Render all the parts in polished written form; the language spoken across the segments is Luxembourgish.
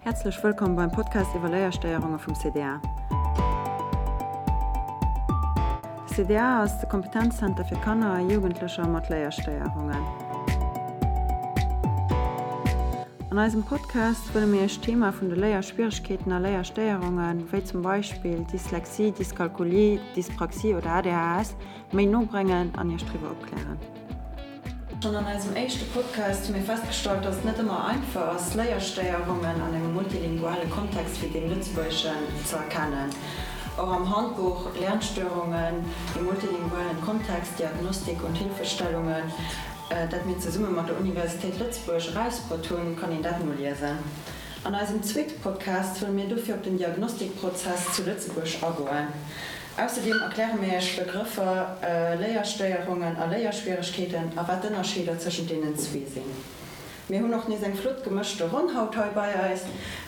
Häerzlech wëllkomm beim Podcast iwwer Léierstéierunge vum CDA. De CDA ass de Kompetenzzenter fir Kanner a Jugendlecher mat Léierstéierungen. An eisem Podcast wëlle mir Iech d'Thema vun de Léierschwieregkeeten a Léierstéierungen, wéi zum Beispill Dyslexie, Dyskalkulie, Dyspraxie oder ADHS, méi no bréngen an Iech driwwer opklären. Schonn an eisem éischte Podcast hu mir festgestallt, dass et net ëmmer einfach ass, Léierstéierungen an engem multilinguale Kontext wéi deem lëtzebuergeschen ze erkennen. Och am Handbuch Lernstörungen im multilingualen Kontext, Diagnostik und Hilfestellungen, dat mir zesumme mat der Universitéit Lëtzebuerg erausbruet hunn, kann een dat noliesen. An eisem zweete Podcast wëlle mir dofir op den Diagnostikprozess zu Lëtzebuerg agoen. Ausserdeem erkläre mir Iech d'Begrëffer Léierstéierungen a Léierschwieregkeeten a wat d'Ënnerscheeder tëschent deenen zwee sinn. Mir hunn och nees eng flott gemëschte Ronn haut hei bei eis.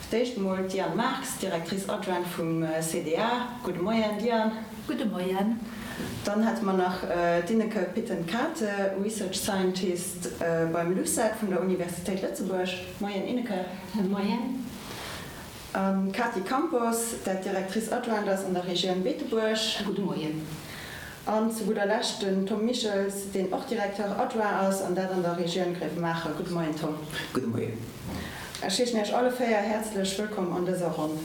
Fir d'éischt emol d'Diane Marx, Directrice adjointe vum CDA. Gudde Moien, Diane. Gudde Moien. Dann hätte mer nach d'Ineke Pittenkate, Research Scientist beim LUCET vun der Universitéit Lëtzebuerg. Moien, Ineke. Moien. An d'Katy Campos, dat Directrice adjointe ass an der Regioun Beetebuerg. Gudde Moien. An zu gudder Lescht den Tom Michels, deen och Directeur adjoint ass, an dat an der Regioun Gréiwemaacher. Gudde Moien, Tom. Gudde Moien. Ech heeschen Iech alle 4 häerzlech wëllkomm an dëser Ronn.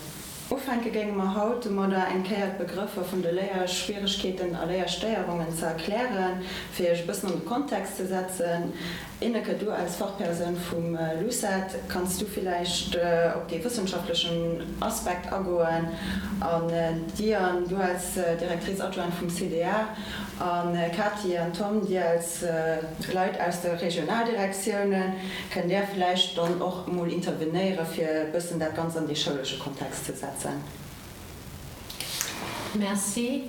Ufänke géinge mer haut domadder, eng Kéier d'Begrëffer vun de Léierschwieregkeeten a Léierstéierungen ze erklären, fir Iech e bëssen an de Kontext ze setzen. Ineke, du als Fachpersoun vum LUCET, kanns du villäicht op dee wëssenschaftlechen Aspekt agoen? An Diane, du als Directrice adjointe vum CDA, a Katy an Tom, dir als Leit aus de Regionaldirektiounen, kënnt där villäicht dann och emol intervenéiere fir e bëssen dat Ganzt an dee schoulesche Kontext ze setzen? Merci.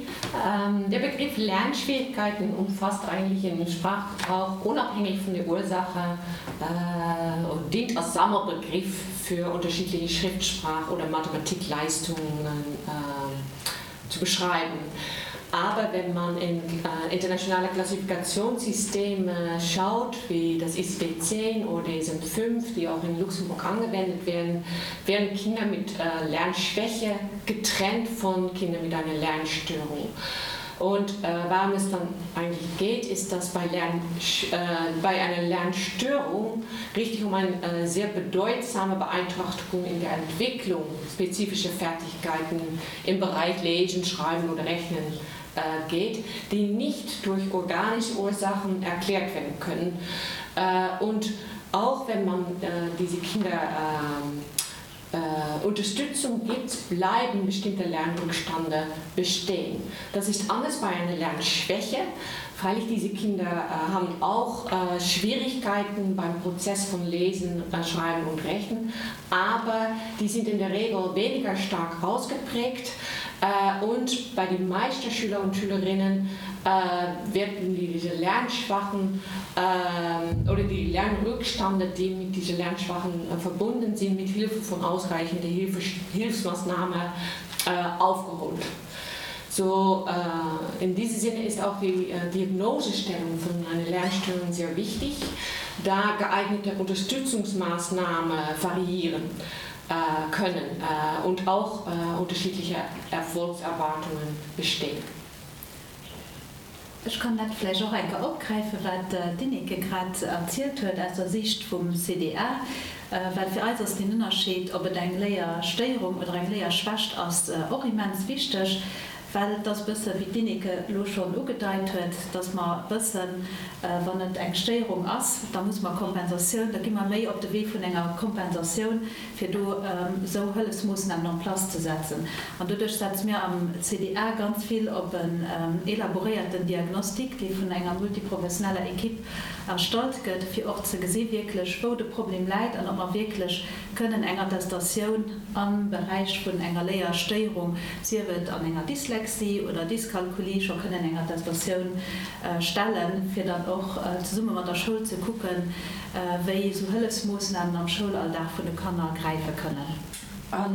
Der Begriff Lernschwierigkeiten umfasst eigentlich im Sprachgebrauch unabhängig von der Ursache äh, und dient als Sammelbegriff für unterschiedliche Schriftsprach- oder Mathematikleistungen äh, zu beschreiben. Aber wenn man in äh, internationale Klassifikationssysteme schaut, wie das ICD-10 oder DSM-5, die auch in Luxemburg angewendet werden, werden Kinder mit äh, Lernschwäche getrennt von Kindern mit einer Lernstörung. Und äh, warum es dann eigentlich geht, ist, dass bei, Lern, äh, bei einer Lernstörung richtig um eine äh, sehr bedeutsame Beeinträchtigung in der Entwicklung spezifischer Fertigkeiten im Bereich Lesen, Schreiben oder Rechnen äh, geht, die nicht durch organische Ursachen erklärt werden können. Äh, und auch wenn man äh, diese Kinder äh, äh, Unterstützung gibt, bleiben bestimmte Lernrückstände bestehen. Das ist anders bei einer Lernschwäche. Freilich diese Kinder äh, haben auch äh, Schwierigkeiten beim Prozess von Lesen, äh, Schreiben und Rechnen, aber die sind in der Regel weniger stark ausgeprägt äh, und bei den meisten Schüler und Schülerinnen äh, werden die, diese Lernschwachen äh, oder die Lernrückstände, die mit diesen Lernschwachen äh, verbunden sind, mit Hilfe von ausreichender Hilfe, Hilfsmaßnahmen äh, aufgeholt. So äh, in diesem Sinne ist auch die äh, Diagnosestellung von einer Lernstörung sehr wichtig, da geeignete Unterstützungsmaßnahmen variieren äh, können äh, und auch äh, unterschiedliche Erfolgserwartungen bestehen. Ech kann dat vläicht och eng Kéier opgräifen, wat d'Ineke grad erzielt huet aus der Sicht vum CDA, well fir eis ass deen Ënnerscheed, ob et eng Léierstéierung oder eng Léierschwächt ass, och immens wichteg, well et ass e bësse wéi d'Ineke elo schonn ugedeit huet, dass mer wëssen, wann et eng Stéierung ass, da muss mer Kompensatioun, da gi mer méi op de Wee vun enger Kompensatioun, fir do esou Hëllefsmoossnamen en place ze setzen. An doduerch setze mir am CDA ganz vill op en elaboréierten Diagnostic, dee vun enger multiprofessioneller Equipe erstallt gëtt, fir och ze gesi wierklech, wou de Problem läit an ob mer wierklech kënnen eng Attestatioun am Beräich vun enger Léierstéierung, sief et an enger Dyslexie oder Dyskalkulie, scho kënnen eng Attestatioun stellen, fir dann och zesumme mat der Schoul ze kucken, wéi esou Hëllefsmoossnamen am Schoulalldag vun de Kanner gräife kënnen. A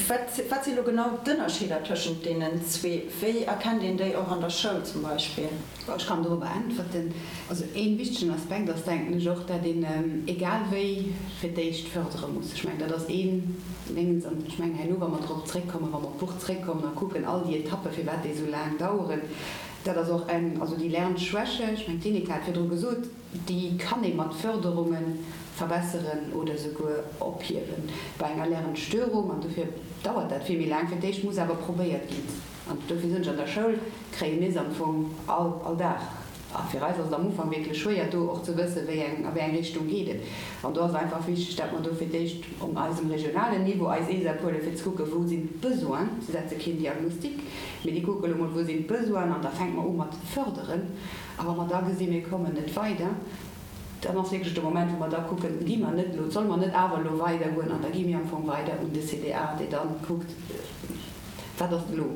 wat, wat si lo genau d'Ënnerscheeder tëschent deenen zwee? Wéi erkennt een déi och an der Schoul zum Beispill? Ech kann dorobber äntwerten. Also ee wichtegen Aspekt ass, denken ech och, dat een egal wéi fir d'éischt fördere muss. Ech mengen, dat ass een Déngens. An ech mengen, herno, wa mer drop zréckkommen, wa mer op d'Buch zréckkommen a kucken all déi Etappen, firwat déi esou laang daueren, dat ass och eng, also déi Lernschwäche, ech mengen, d'Ineke hat virdru gesot, Déi kann ee mat Förderunge verbesseren oder souguer ophiewen. Bei enger Lernstörung, an dofir dauert dat vill méi laang, fir d'éischt muss awer probéiert ginn, an dofir soen ech, an der Schoul kréie mir se am Fong all, all Dag. A fir eis ass et am Ufank wierklech schwéier, do och ze wëssen, wéi eng, a wéi eng Richtung geet et. An do ass et einfach wichteg, dat mer do fir d'éischt op eisem regionalen Niveau eis ESAP huelen, fir ze kucken, wou sinn d'Besoinen. Si setze keen Diagnostic, mee déi kucke elo mol, wou sinn d'Besoinen, an da fänke mer u mat förderen. A wa mer da gesinn, mir kommen net weider, dann ass wierklech de Moment, wou mer da kucken, gi mer net elo, solle mer net awer elo weidergoen? An da gi mir am Fong weider un de CDA, dee da kuckt, wat ass elo?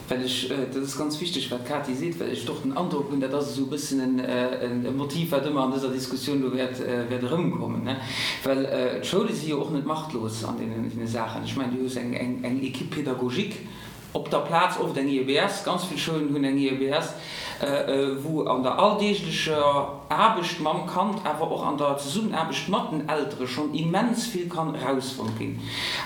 Well ech, dat ass ganz wichteg, wat d'Katy seet, well ech och den Androck hunn, dat ass esou e bëssen e Motiv, wat ëmmer an dëser Diskussioun elo wäert erëmkommen, well d'Schoule si jo och net machtlos an deene Saachen. Ech mengen, du hues eng Équipe pédagogique, Op der Plaz oft eng IEBS, ganz vill Schoulen hunn eng IEBS, wou an der alldeeglecher Aarbecht mam Kand, awer och an der Zesummenaarbecht mat den Eltere schonn immens vill kann erausfonnt ginn.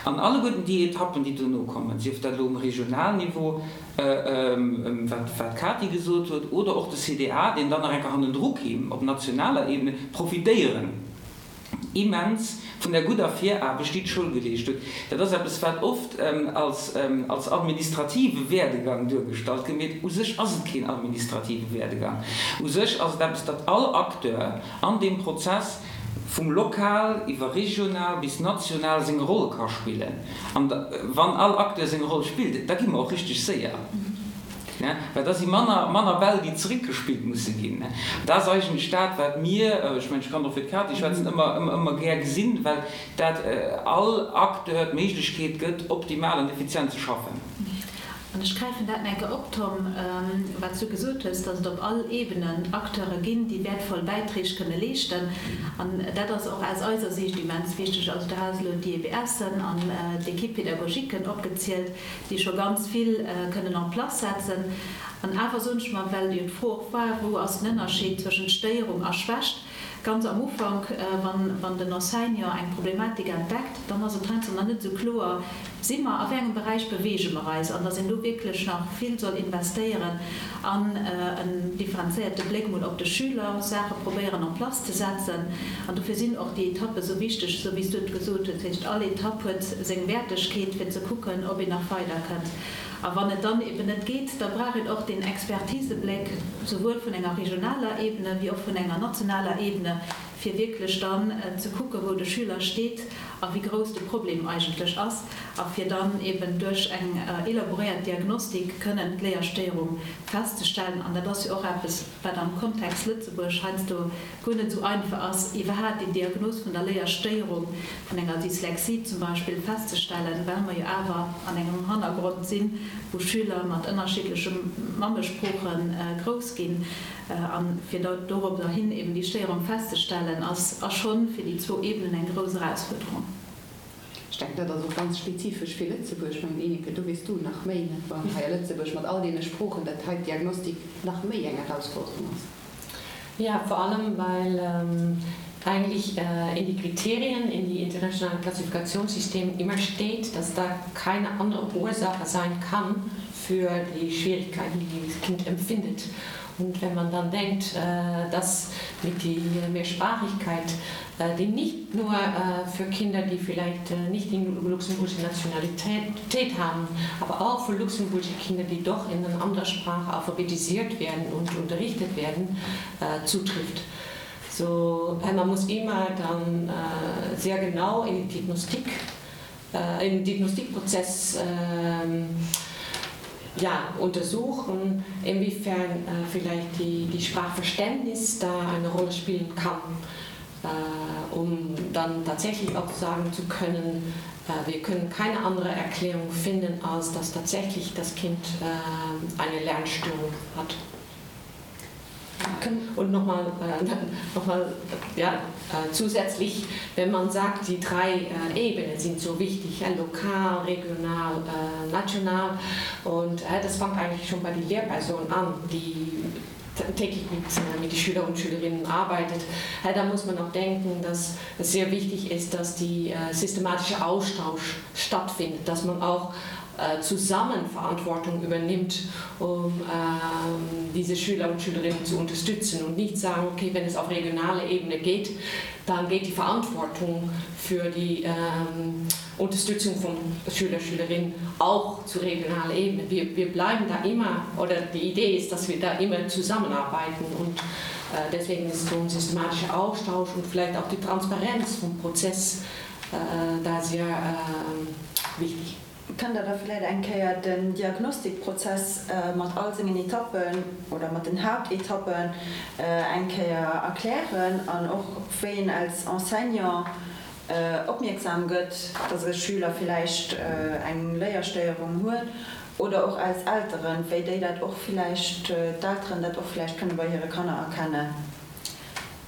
An alleguerten déi Etappen, déi dono kommen, sief dat elo um Regionalniveau, wat d'Katy gesot huet, oder och de CDA, deen dann nach eng Kéier hannendru kéim op nationaler Ebene, profitéieren immens vun der gudder Viraarbecht, déi d'Schoul geleescht huet. Dat ass eppes, wat oft als administrative Werdegang duergestallt gëtt, mee u sech ass et keen administrative Werdegang. U sech ass et eppes, datt all Acteur an deem Prozess vum lokal iwwer regional bis national seng Roll ka spillen. An wann all Acteur seng Roll spillt, da gi mer och richteg séier. Well da si manner, manner Bäll, déi zeréckgespillt musse ginn. Dat ass eigentlech dat, wat mir, ech mengen, ech kann och fir d'Katy schwätzen, ëmmer, ëmmer, ëmmer gär gesinn, well dat all Acteur d'Méiglechkeet gëtt, optimal an effizient ze schaffen. An ech gräifen dat nach eng Kéier op, Tom, wat s du gesot hues, dass et op all Ebenen Acteure ginn, déi wäertvoll Bäiträg kënne leeschten. An dat ass och aus eiser Siicht immens wichteg. Also du has elo d'IEBSen an d'Équipe-pédagogiquen opgezielt. déi scho ganz vill kënnen en place setzen. An awer soen ech mer, well jo d'Fro och war, wou ass den Ënnerscheed zwëschent Stéierung a Schwächt, ganz am Ufank, wann den Enseignant eng Problematik entdeckt, dann ass et heiansdo nach net esou kloer, si mer, a wéi engem Beräich beweege mer eis, an dass een do wierklech nach vill soll investéieren an en differenzéierte Bléck mol op de Schüler, Saache probéieren en place ze setzen. An dofir sinn och déi Etappe sou wichteg, esou wéi s du et gesot hues. Dat heescht, all Etapp huet seng Wäertegkeet, fir ze kucken, ob een nach weiderkënnt. A wann et dann eben net geet, da brauch een och deen Expertisebléck, souwuel vun enger regionaler Ebene wéi och vun enger nationaler Ebene, fir wierklech dann ze kucken, wou de Schüler steet a wéi grouss de Problem eigentlech ass, a fir dann eben duerch eng elaboréiert Diagnostik kënnen d'Léierstéierung festzestellen. An dat ass jo och eppes, wat am Kontext Lëtzebuerg heiansdo guer net esou einfach ass, iwwerhaat déi Diagnos vun der Léierstéierung, vun enger Dyslexie zum Beispill, festzestellen, well mer jo awer an engem Hannergrond sinn, wou Schüler mat ënnerschiddleche Mammesprooche grouss ginn. A fir dorobber hin eben déi Stéierung festzestellen, ass schonn fir déi zwou Ebenen eng grouss Erausfuerderung. Ech denken, dat ass och ganz spezifesch fir Lëtzebuerg. Ech mengen, Ineke, do weess du nach méi, net wahr, hei a Lëtzebuerg mat all deene Sproochen, dat hei d'Diagnostik nach méi eng Erausforderung ass. Ja, vor allem weil ähm, eigentlich äh, in die Kriterien, in die internationalen Klassifikationssystem immer steht, dass da keine andere Ursache sein kann für die Schwierigkeiten, die das Kind empfindet. Und wenn man dann denkt, äh, dass mit die Mehrsprachigkeit, äh, die nicht nur äh, für Kinder, die vielleicht äh, nicht die luxemburgische Nationalität haben, aber auch für luxemburgische Kinder, die doch in einer anderen Sprache alphabetisiert werden und unterrichtet werden, äh, zutrifft. So, äh, man muss immer dann äh, sehr genau in die Diagnostik äh, in den Diagnostikprozess äh, ja, untersuchen, inwiefern äh, vielleicht die, die Sprachverständnis da eine Rolle spielen kann, äh, um dann tatsächlich auch sagen zu können, äh, wir können keine andere Erklärung finden, als dass tatsächlich das Kind äh, eine Lernstörung hat. Und nochmal äh, nochmal ja, äh, zusätzlich, wenn man sagt, die drei äh, Ebenen sind so wichtig, ja, lokal, regional, äh, national und äh, das fängt eigentlich schon bei den Lehrpersonen an, die täglich mit, äh, mit den Schüler und Schülerinnen arbeitet. Äh, da muss man auch denken, dass es sehr wichtig ist, dass die äh, systematische Austausch stattfindet, dass man auch äh, zusammen Verantwortung übernimmt, um ähm, diese Schüler und Schülerinnen zu unterstützen und nicht sagen, okay, wenn es auf regionaler Ebene geht, dann geht die Verantwortung für die ähm, Unterstützung von Schüler Schülerinnen auch zu regionaler Ebene. Wir, wir bleiben da immer oder die Idee ist, dass wir da immer zusammenarbeiten und äh, deswegen ist so ein systematischer Austausch und vielleicht auch die Transparenz vom Prozess äh, da sehr äh, wichtig. Kënnt Der da vläit eng Kéier den Diagnostikprozess mat all sengen Etappen oder mat den Haaptetappen eng Kéier erklären an och wéi een als Enseignant opmierksam gëtt, dass e Schüler villäicht eng Léierstéierung huet oder och als Elteren, wéi déi dat och villäicht, d'Elteren dat och villäicht kënne bei hire Kanner erkennen?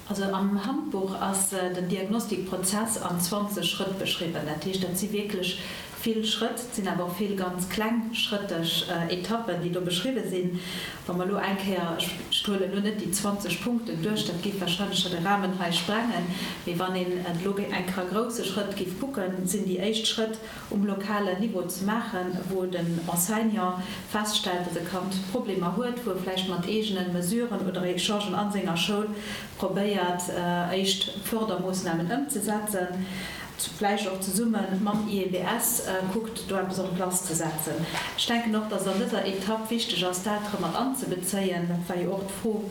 Also am Handbuch ass den Diagnostikprozess an 20 Schrëtt beschriwwen. Dat heescht, dat si wierklech vill Schrëtt, et sinn awer och vill ganz klengschrëtteg Etappen, déi do beschriwwe sinn. Wa mer elo eng Kéier, ech huelen elo net déi 20 Punkten duerch, dat géif wahrscheinlech scho de Rahmen hei sprengen, mee wann een et elo eng Kéier a grousse Schrëtt géif kucken, sinn déi éischt Schrëtt um lokalen Niveau ze maachen, wou den Enseignant feststellt, dass e Kand Problemer huet, wou e vläicht mat eegene Mesuren oder Echangen a senger Schoul probéiert, éischt Fördermoossnamen ëmzesetzen, vläicht och zesumme mam IEBS kuckt, do eppes en place ze setzen. Ech denken och, dass et an dëser Etapp wichteg ass, d'Eltere mat anzebezéien. Dat war jo och d'Fro,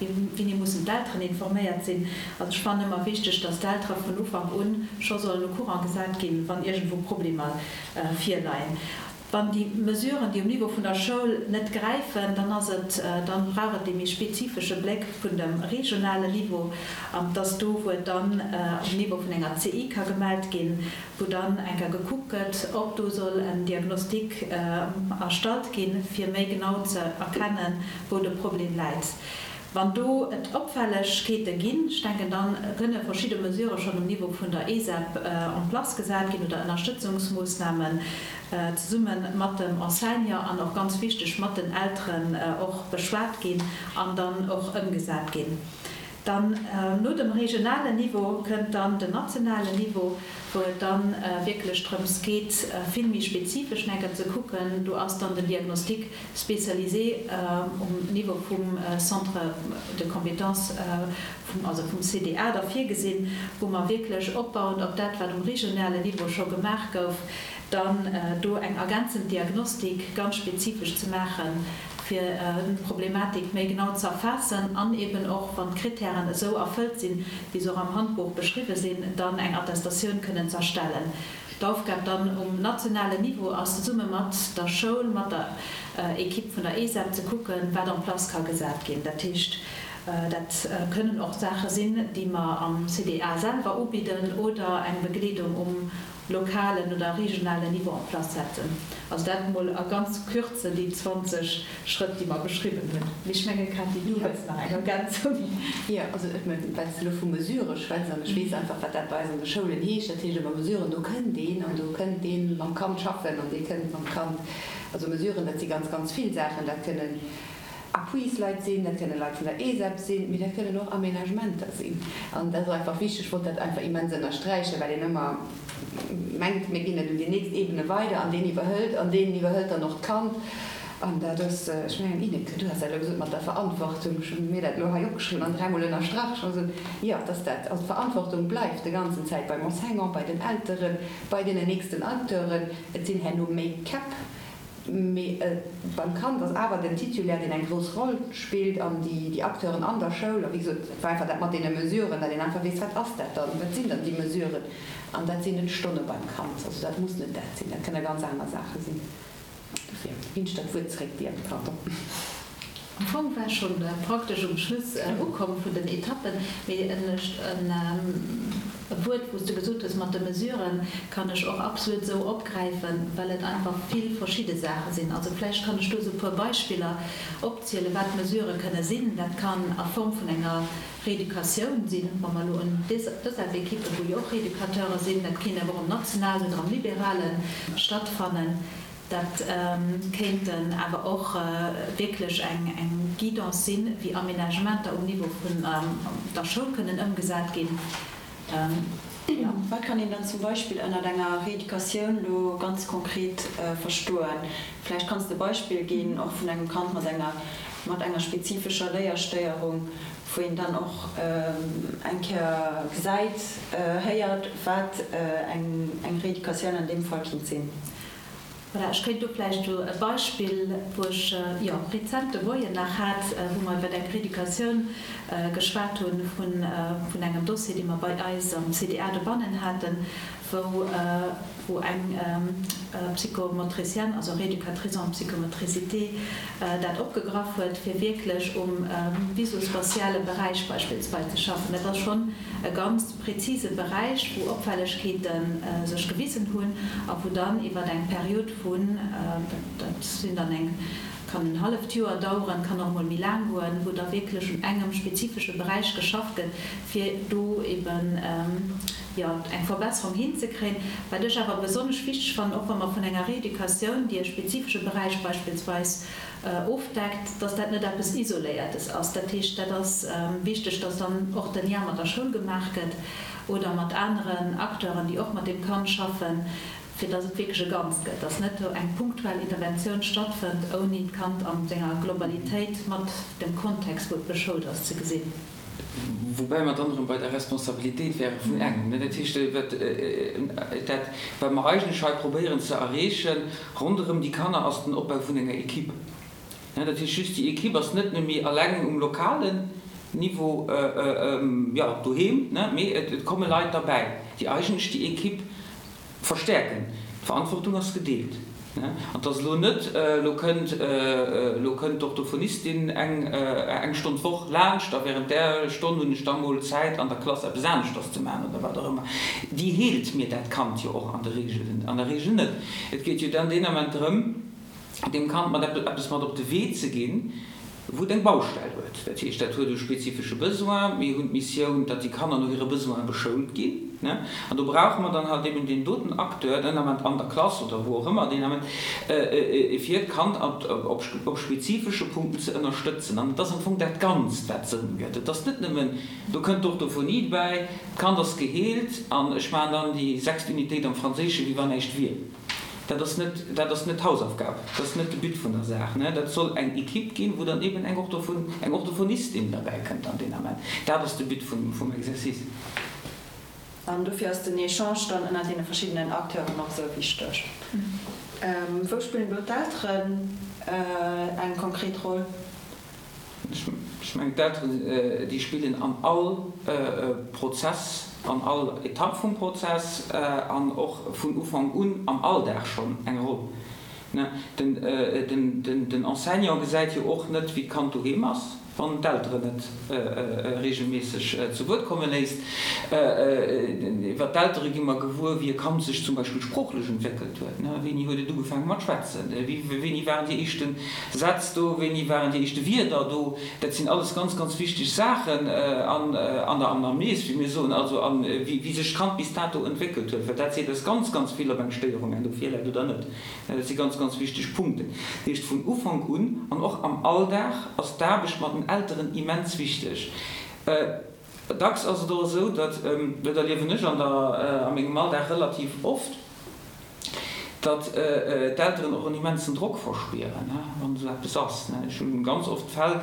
Wéini mussen d'Elteren informéiert sinn? Also ech fannen ëmmer wichteg, dass d'Eltere vun Ufank un scho sollen au courant gesat ginn, wann iergendwou Problemer virleien. Wann déi Mesuren, déi um Niveau vun der Schoul net gräifen, dann ass et, dann brauch et dee méi spezifesche Bléck vun dem regionalen Niveau, an dass do, wou et dann um Niveau vun enger CI ka gemellt ginn, wou dann eng Kéier gekuckt gëtt, ob do soll en Diagnostic erstallt ginn, fir méi genau ze erkennen, wou de Problem läit. Wann do et Opfällegkeete ginn, ech denken, da kënne verschidde Mesurë schonn um Niveau vun der ESEP en place gesat ginn oder Ënnerstëtzungsmoossnamen zesumme mat dem Enseignant an och ganz wichteg mat den Elteren och beschwat ginn an dann och ëmgesat ginn. Dann no dem regionalen Niveau kënnt dann den nationalen Niveau, wou et dann wierklech drëms geet, vill méi spezifesch enker ze kucken. Do ass dann den Diagnostic spécialisé um Niveau vum Centre de compétences, also vum CDA da virgesinn, wou mer wierklech opbauend op dat, wat um regionale Niveau scho gemaach gouf, dann do eng ergänzend Diagnostik ganz spezifesch ze maachen, fir d'Problematik méi genau ze erfaassen an eben och, wann d'Kritären esou erfëllt sinn, wéi se och am Handbuch beschriwwe sinn, dann eng Attestatioun kënnen z'erstellen. D'Aufgab dann um nationalen Niveau ass, zesumme mat der Schoul, mat der Equipe vun der ESEP ze kucken, wat en place ka gesat ginn. Dat heescht, dat kënnen och Saache sinn, déi mer am CDA selwer ubidden oder eng Begleedung um lokalen oder regionalen Niveau en place setzen. Also dat emol a ganz Kürze déi 20 Schrëtt, déi mer beschriwwen hunn. Mee ech mengen, Cathy, du hues nach eng Ergänzung. Jo, also ech mengen, well s de elo vu Mesurë schwätz, an ech weess einfach, wat dat bei eis an de Schoulen heescht, dat heescht ëmmer Mesuren, do kënnt een an do kënnt dee mam Kand schaffen an dee kënnt mam Kand, also Mesuren, dat si ganz, ganz vill Saachen, dat kënnen Appuisleit sinn, dat kënnen Leit vun der ESEP sinn, mee dat kënnen och Aménagementer sinn. An dat ass einfach wichteg, ech wollt dat einfach immens ënnersträichen, well een ëmmer mengt, mir ginn et un déi nächst Ebene weider an deen iwwerhëlt an deen iwwerhëlt dann och d'Kand. An dat ass, ech mengen, Ineke, du has dat elo gesot mat der Verantwortung, ech hu mir dat elo hei opgeschriwwen an dräimol ënnerstrach, ech hu gesot, jo, et ass dat, also d'Verantwortung bleift de ganzen Zäit beim Enseignant, bei den Elteren, bei deenen nächsten Acteuren. Et sinn herno méi Käpp, mee beim Kand ass awer den Titulaire, deen eng grouss Roll spillt an déi Acteuren an der Schoul. A wéi gesot, et war einfach dat mat deene Mesuren, datt een einfach weess, wat ass dat dann, wat sinn dann déi Mesuren? An dat sinn net Stonne beim Kand, also dat muss net dat sinn, dat kënne ganz aner Saache sinn. Dofir ginn ech dat Wuert zréck dir, pardon. Am Fong war ech schonn praktesch um Schluss ukomm vun den Etappen, mee e Wuert, wou s de gesot hues mat de Mesuren, kann ech och absolut esou opgräifen, well et einfach vill verschidde Saache sinn. Also vläicht kann ech do esou e puer Beispiller opzielen, wat Mesurë kënne sinn. Dat kann a Form vun enger Rééducatioun sinn, wa mer elo un d'ESAB-Ekippen, wou jo och Rééducateure sinn, dat kéint awer och am nationalen oder am liberale stattfannen. Dat kéinten awer och wierklech eng Guidance sinn, wéi Aménagementer um Niveau vun der Schoul kënnen ëmgesat ginn. Wat kann een dann zum Beispill ënnert enger Rééducatioun elo ganz konkret verstoen? Vläicht kanns de e Beispill ginn, och vun engem Kand mat enger mat enger spezifescher Léierstéierung, wou een dann och eng Kéier gesäit, héiert, wat eng Rééducatioun an deem Fall kinnt sinn. Voilà, ech kéint do vläicht elo e Beispill, wou ech, jo, rezent de Moien nach hat, wou mer iwwer eng Rééducatioun geschwat hunn vun, vun engem Dossier, dee mer bei eis am CDA dobannen haten, wou, wou eng Psychomotricienne, also Rééducatrice en psychomotricité, dat opgegraff huet, fir wierklech um visospatiale Beräich beispillsweis ze schaffen. Dat ass schonn e ganz prezise Beräich, wou Opfällegkeete sech gewisen hunn a wou dann iwwer eng Period vun, dat sinn dann eng, kann en halleft Joer daueren, kann och emol méi laang goen, wou da wierklech un engem spezifesche Beräich geschafft gëtt, fir do eben, jo, eng Verbesserung hinzekréien. Wat ech awer besonnesch wichteg fannen, och wa mer vun enger Rééducatioun, déi e spezifesche Beräich beispillsweis ofdeckt, dass dat net eppes Isoléiertes ass. Dat heescht, dat ass wichteg, dass dann och de Lien mat der Schoul gemaach gëtt oder mat aneren Acteuren, déi och mat deem Kand schaffen, fir dass et wierklech e Ganzt gëtt, dass net do eng punktuell Interventioun stattfënnt, ouni d'Kand an senger Globalitéit mat dem Kontext, wou et beschoult ass, ze gesinn. Woubäi mer dann erëm bei der Responsabilitéit wäre vun engem. Dat heescht, dat, wat mer eigentlech hei probéieren ze erreechen ronderëm déi Kanner, ass den Opbau vun enger Equipe. Dat heescht just, déi Equipe ass net nëmme eleng um lokalen Niveau, jo, doheem, mee et komme Leit derbäi, déi eigentlech déi Equipe Verstäerken. D'Verantwortung ass gedeelt. An et ass elo net, elo kënnt, elo kënnt d'Orthophonistin eng, eng Stonn d'Woch laanscht a während där Stonn hunn ech da mol Zäit an der Klass eppes aneschters ze maachen oder wat och ëmmer. Déi heelt mir dat Kand jo och an der Regel, an der Regel net. Et geet jo dann deen Ament drëm, deem Kand mat eppes mat op de Wee ze ginn, wou et eng Baustell huet. Dat heescht, dat huet e spezifesche Besoin. Mir hunn d'Missioun, datt déi Kanner no hire Besoine beschoult ginn. An do brauche mer dann halt eben deen doten Acteur, den Ament an der Klass oder wou och ëmmer deen Ament, fir d'Kand op spezifesche Punkten ze ënnerstëtzen. An et ass am Fong dat Ganzt, wat Sënn gëtt. Et ass net nëmmen, do kënnt d'Orthophonie dobäi, d'Kand ass geheelt an ech maachen dann déi sechst Unitéit am Franséischen, wéi wann näischt wier. Dat ass net, dat ass net d'Hausaufgab, dat ass net de But vun der Saach. Dat soll eng Equipe ginn, wou dann eben eng Orthophon, eng Orthophonistin derbäi kënnt an deen Ament. Dat ass de But vum, vum Exercice. An dofir ass den Echange dann ënner deene verschiddenen Acteuren och esou wichteg. Wou spillen do d'Elteren eng konkret Roll? Ech mengen, d'Elteren, déi spillen an all Prozess, an all Etapp vum Prozess an och vun Ufank un am Alldag schonn eng Roll. Den Enseignant gesäit jo och net, wéi d'Kand doheem ass. Wann d'Elteren net regelméisseg zu Wuert komme léisst. Iwwer d'Eltere gi mer gewuer, wéi e Kand sech zum Beispill sproochlech entwéckelt huet. Wéini huet et ugefaange mat schwätzen? Wéini waren déi éischte Sätz do? Wéini waren déi éischte Wierder do? Dat sinn alles ganz, ganz wichteg Saachen an der Anamnes, wéi mir soen, also a wéi sech d'Kand bis dato entwéckelt huet, well dat seet eis ganz, ganz vill, ob eng Stéierung herno virläit oder net. Dat si ganz, ganz wichteg Punkten. Dat heescht, vun Ufank un an och am Alldag ass d'Aarbecht mat den Elteren immens wichteg. Dacks ass et och esou, datt, dat erliewen ech an der, a mengem Alldag relativ oft, datt d'Elteren och en immensen Drock verspieren, wann esou eppes ass. Ech hu ganz oft Fäll,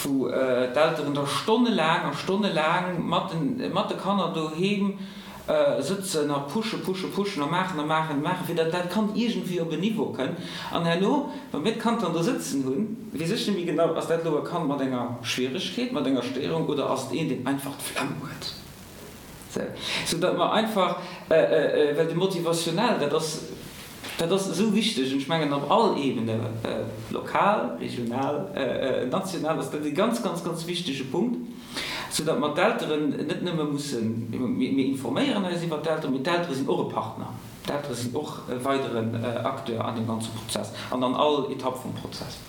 wou d'Elteren da stonnelaang a stonnelaang mat de Kanner doheem sëtzen a pushen, pushen, pushen a maachen a maachen a maachen, fir datt dat Kand iergendwéi op en Niveau kënnt. An herno, wa mir d'Kand dann do sëtzen hunn, weess ech net méi genau, ass dat elo e Kand mat enger Schwieregkeet, mat enger Stéierung oder ass et een, deen einfach d'Flemm huet? Sou, sou datt mer einfach, well de Motivationnel, dat ass. Dat ass esou wichteg an ech mengen op all Ebene, lokal, regional, national, ass dat e ganz, ganz, ganz wichtege Punkt, soudatt mer d'Elteren net nëmme mussen, mir informéieren eis iwwert d'Elteren, mee d'Eltere sinn och e Partner, d'Eltere sinn och e weideren Acteur an deem ganze Prozess an an all Etapp vum Prozess.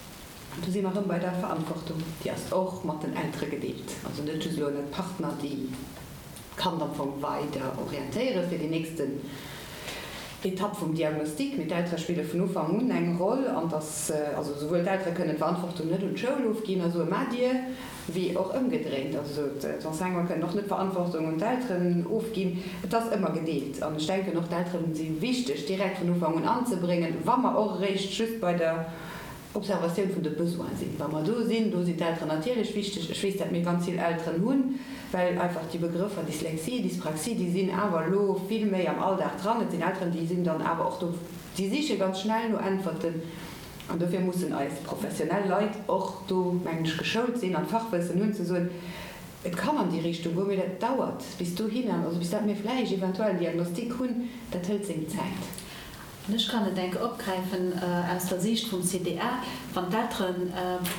An do si mer erëm bei der Verantwortung, déi ass och mat den Eltere gedeelt, also net just elo net d'Partner, déi d'Kand am Fong weider orientéiere fir déi nächsten Etapp vum Diagnostic, mee d'Eltere spille vun Ufank un eng Roll an dass also souwuel d'Eltere kënnen d'Verantwortung net un d'Schoul ofginn a soe maacht Dir, wéi och ëmgedréint, also d'Enseignanten kënnen och net d'Verantwortung un d'Elteren ofginn. Et ass ëmmer gedeelt an ech denken och d'Elteren si wichteg direkt vun Ufank un anzebréngen, wa mer och eréischt just bei der Observatioun vun de Besoine sinn. Wa mer do sinn, do sinn d'Elteren natierlech wichteg. Ech weess, dat mir ganz vill Elteren hunn, well einfach déi Begrëffer Dyslexie, Dyspraxie, déi sinn awer elo vill méi am Alldag dran. Et sinn Elteren, déi sinn dann awer och do, déi siche ganz schnell no Äntwerten. An dofir mussen eis professionell Leit och do, mengen ech, geschoult sinn an d'Fachwëssen hunn, ze soen, Et kann an déi Richtung goen, mee dat dauert bis dohinner, also bis dat mir vläicht eventuell en Diagnostic hunn, dat hëlt seng Zäit. An ech kann et enke opgräifen aus der Siicht vum CDA, Wann d'Eltere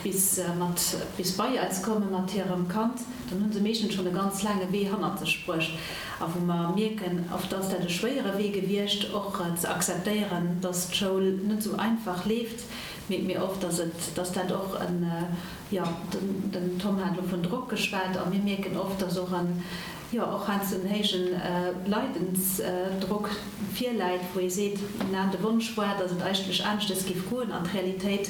bis mat bis bei eis komme mat hirem Kand, dann hu se meeschtens schonn e ganz laange Wee hannert sech bruecht. A wou mer mierken, oft ass dat e schwéiere Wee gewiescht, och ze akzeptéieren, dass d'Schoul net esou einfach leeft, mierke mir oft, dass et, dass dat och en, jo, den Tom hat elo vun Drock geschwat, a mir mierken oft, dass och en, jo, och heiansdo en héijen Leidensdrock virläit, wou ee seet, na, de Wonsch war, datt et eigentlech aneschtes géif goen, an d'Realitéit,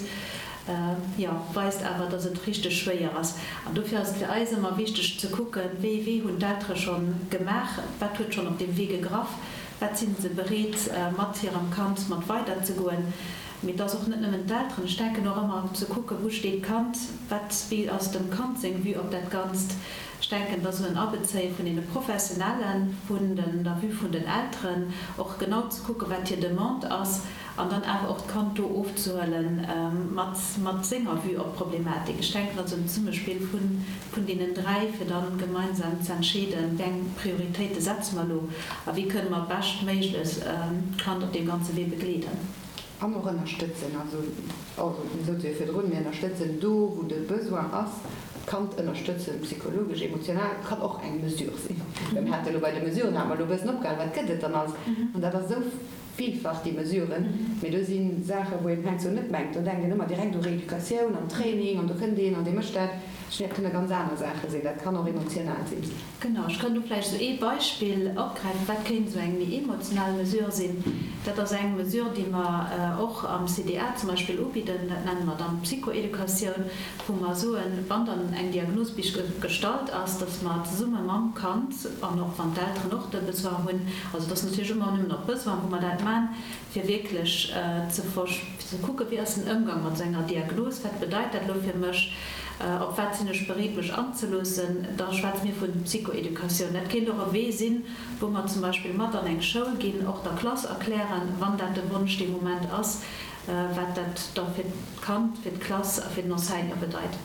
jo, weist awer, datt et richteg schwéier ass. An dofir ass et fir eis ëmmer wichteg ze kucken, wéi ee Wee hunn d'Eltere scho gemaach, wat huet schonn op deem Wee gegraff, wat si se bereet mat hirem Kand mat weiderzegoen. Mee et ass och net nëmmen d'Elteren. Ech denken och ëmmer ze kucken, wou steet d'Kand, wat, wéi ass dem Kand seng Vue op dat Ganzt. Ech denken, dass esou en Abezéie vun deene Professionellen, vun den, der Vue vun den Elteren, och genau ze kucken, wat hir Demande ass, an dann awer och d'Kand do ofzehuele mat, mat senger Vue op d'Problematik. Ech denken, dat ass en Zesummespill vun, vun deenen dräi, fir da gemeinsam ze entscheeden, wéi eng Prioritéite setze mer elo a wéi kënne mer beschtméiglech d'Kand op deem ganze Wee begleeden. An och ënnerstëtzen. Also, also mir sote jo virdrun, mir ënnerstëtzen do, wou de Besoin ass, d'Kand ënnerstëtzen, psychologesch, emotional, kann och eng Mesure sinn. Well mir hate elo bei de Mesuren, hate mer elo e bëssen opgehalen, wat gëtt et dann alles? An dat ass esou villfach, déi Mesuren. Mee do si Saachen, wou een heiansdo net mengt, do denkt een ëmmer direkt u Rééducatioun an Training an do kënnt een an dee mécht dat. Ech mengen, dat kënne ganz aner Saache sinn, dat kann och emotional sinn. Genau, ech kann do vläicht esou ee Beispill opgräifen, wat kéint esou eng méi emotional Mesure sinn. Dat ass eng Mesure, déi mer och am CDA zum Beispill ubidden, dat nenne mer dann d'Psychoeducatioun, wou mer soen, wann dann eng Diagnos bis gestallt ass, dass mer zesumme mam Kand, an och wann d'Elteren och de Besoin hunn, also et ass natierlech ëmmer nëmmen op Besoin, wou mer dat man, fir wierklech ze ze kucken, wéi ass den Ëmgang mat esou enger Diagnos, wat bedeit dat elo fir mech, op wat sinn ech bereet mech anzeloossen, da schwätze mir vun Psychoeducatioun. Dat kéint och e Wee sinn, wou mer zum Beispill mat an eng Schoul ginn, och der Klass erklären, wann dat de Wonsch dee Moment ass, wat dat da fir d'Kand, fir d'Klass a fir den Enseignant bedeit.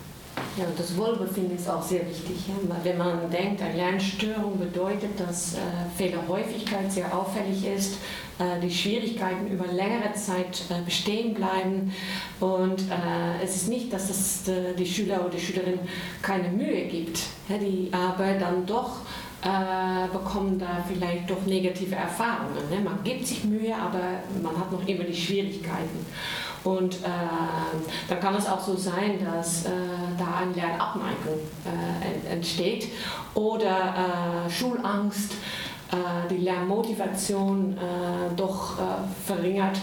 Ja, und das Wohlbefinden ist auch sehr wichtig. Ja? Wenn man denkt, eine Lernstörung bedeutet, dass äh, Fehlerhäufigkeit sehr auffällig ist, äh, die Schwierigkeiten über längere Zeit äh, bestehen bleiben. Und äh, es ist nicht, dass es äh, die Schüler oder die Schülerin keine Mühe gibt, ja, die aber dann doch äh, bekommen da vielleicht doch negative Erfahrungen. Ne? Man gibt sich Mühe, aber man hat noch immer die Schwierigkeiten. Und äh, dann kann es auch so sein, dass äh, da eine Lernabneigung äh, entsteht oder äh, Schulangst, äh, die Lernmotivation äh, doch äh, verringert.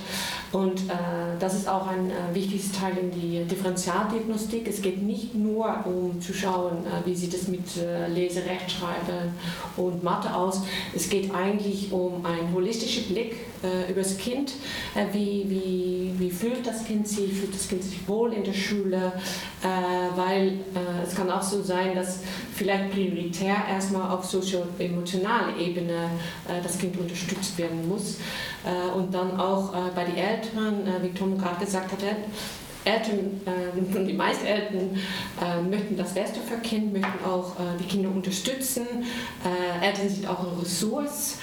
Und äh, das ist auch ein äh, wichtiges Teil in die Differentialdiagnostik. Es geht nicht nur um zu schauen, äh, wie sieht es mit äh, Lese, Rechtschreiben und Mathe aus. Es geht eigentlich um einen holistischen Blick äh, über das Kind. Äh, wie, wie, wie fühlt das Kind sich? Fühlt das Kind sich wohl in der Schule? Äh, weil äh, es kann auch so sein, dass vielleicht prioritär erstmal auf sozio-emotionaler Ebene äh, das Kind unterstützt werden muss. Äh, und dann auch äh, bei den Eltern, äh, wie Tom gerade gesagt hat, Eltern, äh, die meisten Eltern äh, möchten das Beste für Kind, möchten auch äh, die Kinder unterstützen. Äh, Eltern sind auch eine Ressource.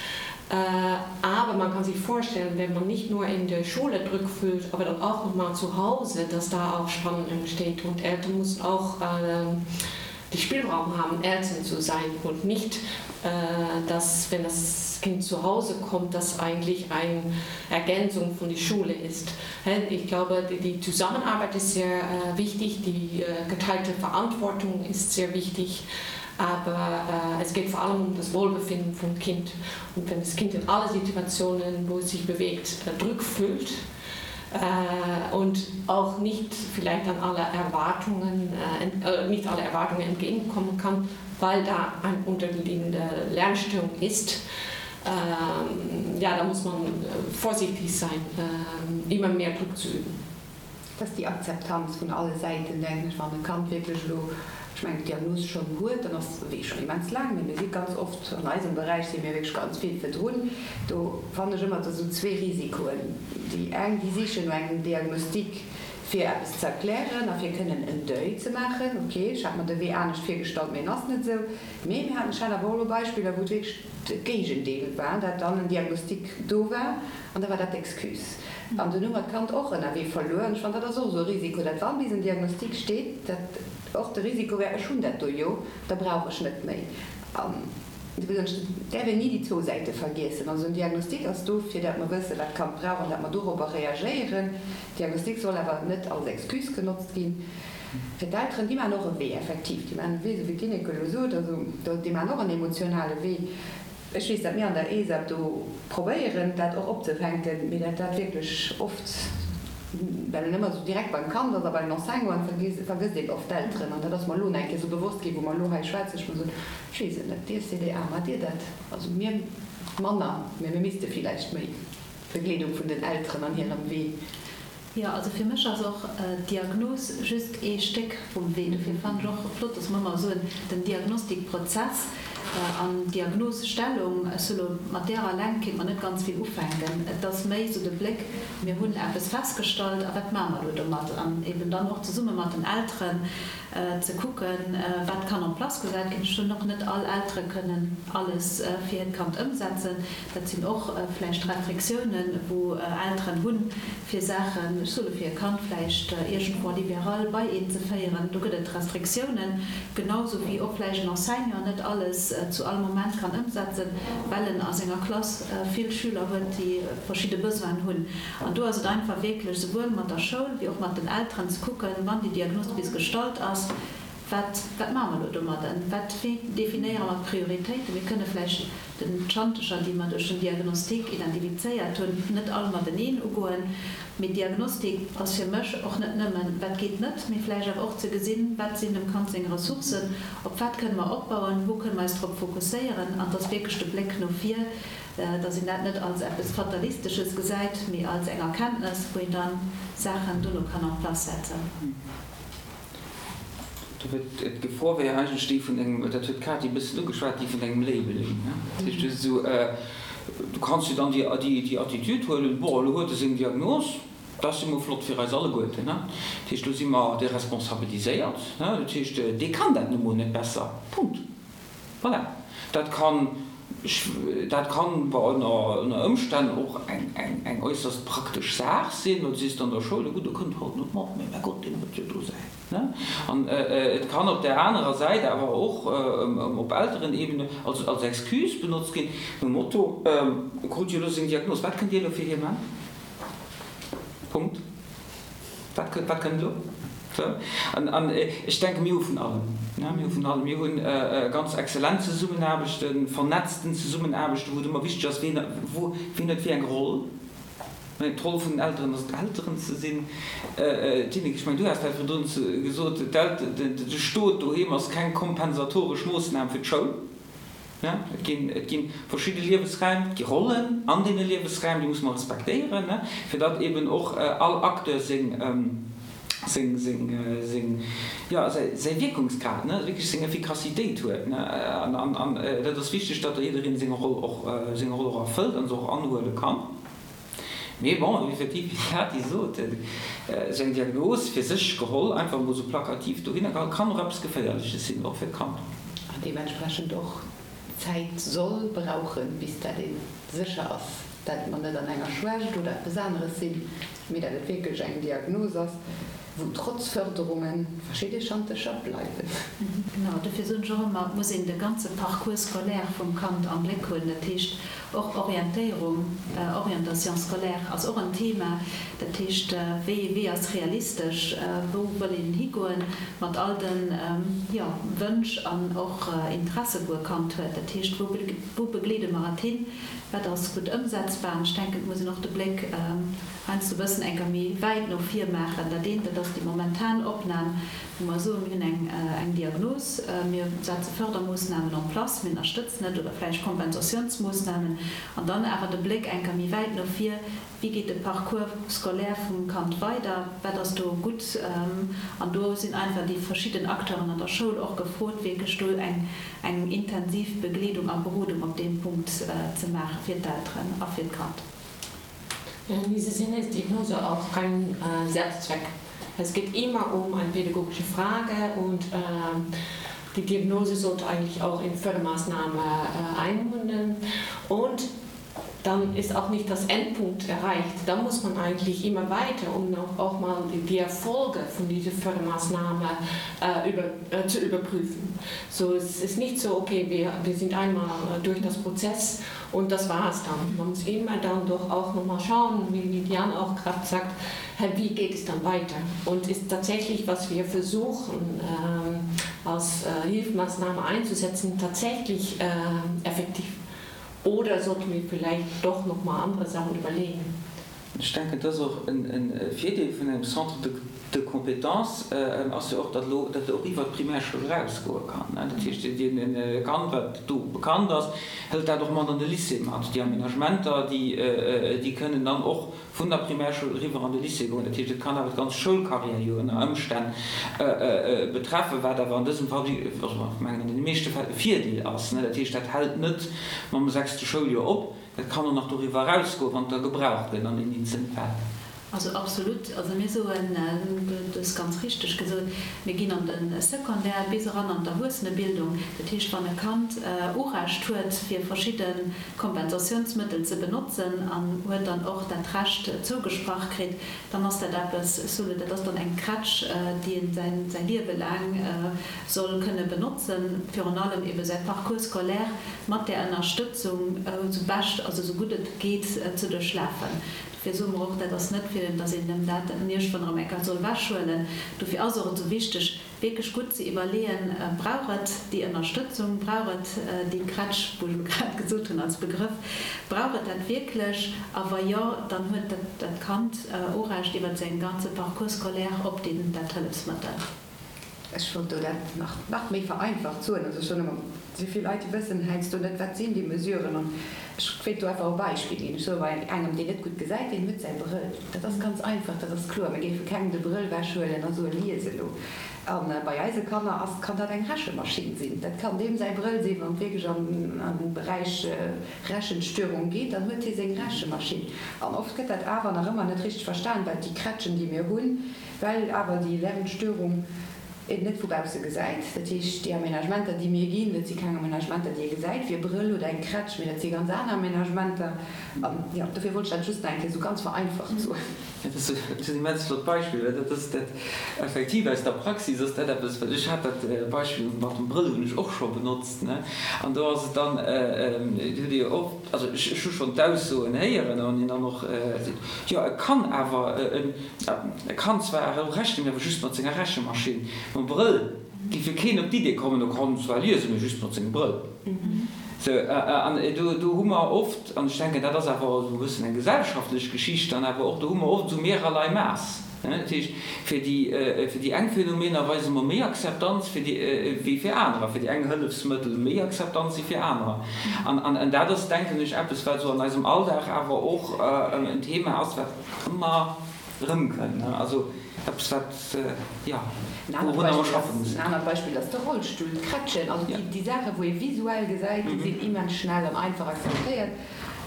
Aber man kann sich vorstellen, wenn man nicht nur in der Schule Druck fühlt, aber dann auch noch mal zu Hause, dass da auch Spannung entsteht und Eltern müssen auch äh, die Spielraum haben, Eltern zu sein und nicht, äh, dass wenn das Kind zu Hause kommt, das eigentlich eine Ergänzung von der Schule ist. Ich glaube, die, die Zusammenarbeit ist sehr äh, wichtig, die äh, geteilte Verantwortung ist sehr wichtig aber äh, es geht vor allem um das Wohlbefinden vom Kind. Und wenn das Kind in alle Situationen, wo es sich bewegt, äh, Druck fühlt äh, und auch nicht vielleicht an alle Erwartungen, äh, äh, nicht alle Erwartungen entgegenkommen kann, weil da eine unterliegende Lernstörung ist, ähm, ja, da muss man äh, vorsichtig sein, äh, immer mehr Druck zu üben. Et ass déi Akzeptanz vun alle Säiten, denken ech, wann e Kand wierklech elo, ech mengen, d'Diagnos schonn huet, dann ass de Wee schonn immens laang, mee mir si ganz oft, an eisem Beräich si mir wierklech ganz vill virdrun. Do fannen ech ëmmer, et ass esou zwee Risikoen. Déi eng, déi sichen no engem Diagnostic, fir eppes ze erklären a fir kënnen en Deuil ze maachen, ok, ech hat mer de Wee anescht virgestallt, mee en ass net esou. Mee mir haten, ech hat awer och elo Beispiller, wou et wierklech de Géigendeel war, dat dann en Diagnostic do war an da war dat d'Excuse. An dunn hu mer d'Kand och ënnerwee verluer. An ech fannen, dat ass och esou e Risiko, dat wann bis en Diagnostic steet, dat och de Risiko wär, ech hunn dat do jo, da brauch ech net méi. An do soen ech, et däerf een ni déi zwou Säite vergiessen. Also en Diagnostic ass do, fir dat mer wëssen, wat d'Kand brauch an dat mer dorobber reagéieren. Diagnostic soll awer net als Excuse genotzt ginn. Fir d'Elteren, déi maachen och e Wee, effektiv, déi maachen e Wee, esou wéi d'Ineke elo sot, also déi maachen och en emotionale Wee. Ech weess, dat mir an der ESAP do probéieren, dat och opzefänken, mee dat dat wierklech oft, well en ëmmer esou direkt beim Kand ass a beim Enseignant, vergësst een oft d'Elteren. An dat ass mer elo nach eng Kéier esou bewosst ginn, wou mer elo hei schwätzen. Ech muss soen, ech weess et net, Dir CDA, maacht Dir dat? Also mir manner, mee mir misste villäicht méi. Begleedung vun den Elteren an hirem Wee. Jo, also fir mech ass och d'Diagnos just ee Stéck vum Wee. Dofir fannen ech och flott, dass mer ëmmer soen, den Diagnostikprozess an d'Diagnosestellung, ech soe lo, mat där alleng kéint mer net ganz vill ufänken. Et ass méi esou de Bléck, mir hunn eppes festgestallt a wat maache mer elo domat? An eben dann och zesumme mat den Elteren ze kucken, wat kann en place gesat ginn. Ech soen och, net all Eltere kënnen alles fir hiert Kand ëmsetzen. Dat sinn och vläicht Restriktiounen, wou Elteren hunn, fir Saachen, ech soe fir e Kand vläicht iergendwou en libéral bei een ze féieren. Do gëtt et Restriktiounen, genau sou wéi och vläicht en Enseignant net alles zu all Moment kann ëmsetzen, well en a senger Klass vill Schüler huet, déi verschidde Besoinen hunn. An do ass et einfach wierklech souwuel mat der Schoul wéi och mat den Elteren ze kucken, wann déi Diagnos bis gestallt ass, Wat, wat maache mer elo domadden? Wat, wéi definéiere mer d'Prioritéiten? Mir kënne vläicht den d'Schantecher, déi mer duerch den Diagnostic identifizéiert hunn, net all mateneen ugoen. Mee Diagnostic ass fir mech och net nëmmen, wat geet net, mee vläicht awer och ze gesinn, wat sinn dem Kand seng Ressourcen, op wat kënne mer opbauen, wou kënne mer eis drop fokusséieren. An et ass wierklech de Bléck no vir, dass een dat net als eppes Fatalistesches gesäit, mee als eng Erkenntnes, wou een dann Saachen dono kann en place setzen. D'Gefor wär eigentlech déi vun engem, dat huet d'Katy e bëssen ugeschwat, déi vun engem Labeling. Dat heescht, du esou, du kanns jo dann déi Attitude huelen, bon, elo huet e seng Diagnos, dat ass jo mol flott fir eis alleguerten. Dat heescht, elo si mer deresponsabiliséiert, dat heescht, dee kann dat nu mol net besser, Punkt. Voilà. Dat kann, dat kann, bon, ënner Ëmstänn och eng äusserst praktesch Saach sinn, well du sees dann der Schoul, jo gutt, e kënnt halt net mat, mee mäi Gott, deen huet jo do säin, ne? An et kann op där anerer Säit awer och op Elterenebene als, als Excuse benotzt ginn, nom Motto, E krut jo elo seng Diagnos, wat kënnt Dir elo fir hie man? Punkt. Wat kënnt, wat kënnt elo? Sou. An, an ech denken, mir hu vun allem, ne, mir hu vun allem. Mir hunn ganz exzellent Zesummenaarbechten, vernetzten Zesummenaarbechten, wou et ëmmer wichteg ass, ween, wou, ween huet wéi eng Roll. Mä d'Roll vun den Elteren ass et, Elteren ze sinn. Tineke, ech mengen, du has dat virdrun gesot, d'Elt, de Stot doheem ass keng kompensatoresch Moossnam fir d'Schoul. Et ginn, et gi verschidde Liewesräim, et gi Rollen an deene Liewesräim, déi musse mer respektéieren, fir datt eben och all Acteur seng, seng, seng, seng, jo, säi, säi Wierkungsgrad, wierklech seng Effikassitéit huet. An, an, an dat ass wichteg, datt da jiddereen seng Roll och, seng Roll och erfëllt an se och anhuele kann. Mee bon, effektiv, wéi d'Katy sot, esou eng Diagnos fir sech geholl, einfach emol esou plakativ dohinner geholl, kann och eppes Geféierleches sinn, och fir d'Kand. An deementsprechend och. Zäit soll brauchen, bis dat ee sécher ass, dat mer net an enger Schwächt oder eppes aneres sinn, mee dat et wierklech eng Diagnos ass, wou trotz Förderunge verschidde Schantercher bleiwen. Genau, dofir soen ech och ëmmer, et muss een de ganze Parcours scolaire vum Kand am Bléck hunn. Dat heescht och Orientéierung, Orientation scolaire ass och en Thema. Dat heescht, wéi ee Wee ass realistesch, wou wëll een higoen mat all de, jo, Wënsch an och Interesse wou e Kand huet. Dat heescht, wou wou begleede mer et hin, wat ass gutt ëmsetzbar. An ech denken, et muss een och de Bléck heiansdo e bëssen enker méi wäit no vir maachen. Dat eent, dat ass déi momentan Opnam, wou mer soen, mir hunn eng eng Diagnos, mir setze Fördermoossnamen en place, mir ënnerstëtzen et oder vläicht Kompensatiounsmoossnamen, an dann awer de Bléck enker méi wäit no vir, Wéi geet de Parcours scolaire vum Kand weider, wat ass do gutt? An do sinn einfach déi verschidden Acteuren an der Schoul och gefrot, wierklech do eng eng intensiv Begleedung a Berodung op deem Punkt ze maache fir d'Elteren a fir d'Kand. In diesem Sinne ist Diagnose auch kein Selbstzweck. Es geht immer um eine pädagogische Frage und die Diagnose sollte eigentlich auch in Fördermaßnahme einmünden. Und dann ist auch nicht das Endpunkt erreicht. Da muss man eigentlich immer weiter, um auch mal die Erfolge von dieser Fördermaßnahme äh, über, äh, zu überprüfen. So es ist nicht so, okay, wir, wir sind einmal durch das Prozess und das war es dann. Man muss immer dann doch auch noch mal schauen, wie Diane auch gerade sagt, wie geht es dann weiter? Und ist tatsächlich, was wir versuchen ähm, als äh, Hilfsmaßnahme einzusetzen, tatsächlich äh, effektiv? Oder sollten wir vielleicht doch noch mal andere Sachen überlegen? Ech denken, et ass och e Virdeel vun engem Centre de compétences ass jo och, datt elo dat och iwwert d'Primärschoul erausgoe kann. Dat heescht, e Kand, wat do bekannt ass, hëlt dat och mat an de Lycée mat. Déi Aménagementer, déi kënnen dann och vun der Primärschoul eriwwer an de Lycée goen. Dat heescht, et kann awer d'ganz Schoulcarrière jo ënner Ëmstänn betreffen, wat awer an dësem Fall, also ech mengen an deene meeschte Fäll, e Virdeel ass. Dat heescht, dat hält net mam sechste Schouljoer op, dat kann och nach doriwwer erausgoen, wann et da gebraucht gëtt an den eenzelne Fäll. Also absolut. Also mir soen, du hues ganz richteg gesot, mir ginn an de Secondaire bis eran an d'Erwuessenebildung. Dat heescht, wann e Kand Urecht huet, fir verschidde Kompensatiounsmëttel ze benotzen an huet dann och dat Recht zougesprach kritt, dann ass dat eppes, ech soen, dat ass dann eng Krätsch, déi en säin säi Liewe laang soll kënne benotzen, virun allem ebe säi Parcours scolaire mat där Ënnerstëtzung esou bescht, also esou gutt et geet ze duerchlafen. Dofir soe mer och, dat ass net fir, datt een em dat iergendwann erëm eng Kéier soll ewechhuelen. Dofir ass och et esou wichteg, wierklech gutt ze iwwerleeën, Brauch et déi Ënnerstëtzung, brauch et déi Krätsch, wou ech elo grad gesot hunn als Begrëff, brauch et dat wierklech? A wa jo, dann huet dat Kand Urecht iwwer säin ganze Parcours scolaire op deen dat Hëllefsmëttel. Ech wollt do dat nach nach méi vereinfacht soen. Also ech soen ëmmer, esou vill Leit, déi wëssen heiansdo net, wat sinn déi Mesuren. An ech wéilt do einfach e Beispill ginn. Ech soe bei engem, deen net gutt gesäit, deen huet säi Brëll. Dat ass ganz einfach, dat ass kloer. Mir géife kengem de Brëll wechhuelen a soen, Lies elo. A bei eise Kanner ass, kann dat eng Rechemaschinn sinn. Dat kann deem säi Brëll sinn, wann et wierklech an an de Beräich Rechenstörung geet, dann huet hie seng Rechemaschinn. An oft gëtt dat awer nach ëmmer net richteg verstan, well déi Krätschen, déi mir hunn, Well awer déi Lernstörung een net vu bausse gesäit. Dat heescht, déi Aménagementer, déi mir ginn, dat si keng Aménagementer, déi ee gesäit, wéi e Brëll oder eng Krätsch, mee dat si ganz aner Aménagementer. An, jo, dofir wollt ech dat just nach eng Kéier esou ganz vereinfacht soen. Dat ass en immens flott Beispill, well dat ass dat effektiv aus der Praxis ass dat eppes, well ech hat dat Beispill mat dem Brëll hunn ech och scho benotzt, ne, an do ass et dann, do hutt Dir jo och, also ech hu schonn d'Aussoen héieren, wann een dann och seet, jo e kann awer, E kann zwar och rechnen, mee awer just mat senger Rechemaschinn. Mam Brëll géif jo keen op d'Idee kommen, e kann zwar liesen, mee just mat sengem Brëll. Sou, an do, do hu mer oft, an ech denken, dat ass awer esou e bëssen eng gesellschaftlech Geschicht dann awer och, do hu mer oft esou mehrerlei Maass. Dat heescht, fir déi, fir déi eng Phänomener weise mer méi Akzeptanz fir déi, wéi fir anerer, fir déi eng Hëllefsmëttel méi Akzeptanz wéi fir anerer. An, an dat ass, denken ech, eppes, wat esou an eisem Alldag awer och en Thema ass, wat ëmmer erëmkënnt, ne? Also eppes wat, jo, wourunner mer schaffe mussen. En anert Beispill ass de Rollstull, d'Krätschen, also déi Saachen, wou ee visuell gesäit, déi sinn immens schnell an einfach akzeptéiert.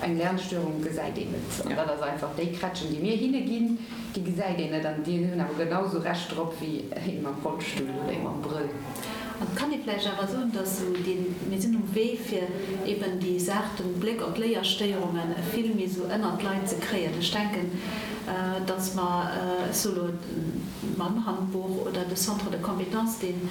Eng Lernstörung gesäit een net. An dat ass einfach, déi Krätschen, déi mir hinne ginn, déi gesäit een net an déi hunn awer genau esou Recht drop wéi ee mam Rollstull oder ee mam Brëll. An et kann ee vläicht awer soen, dass esou dee, mir sinn um Wee fir eben déi Saach, den Bléck op d'Léierstéierunge vill méi esou ënnert d'Leit ze kréien. Ech denken, dass mer, ech soe lo mam Handbuch oder de Centre de compétences, deen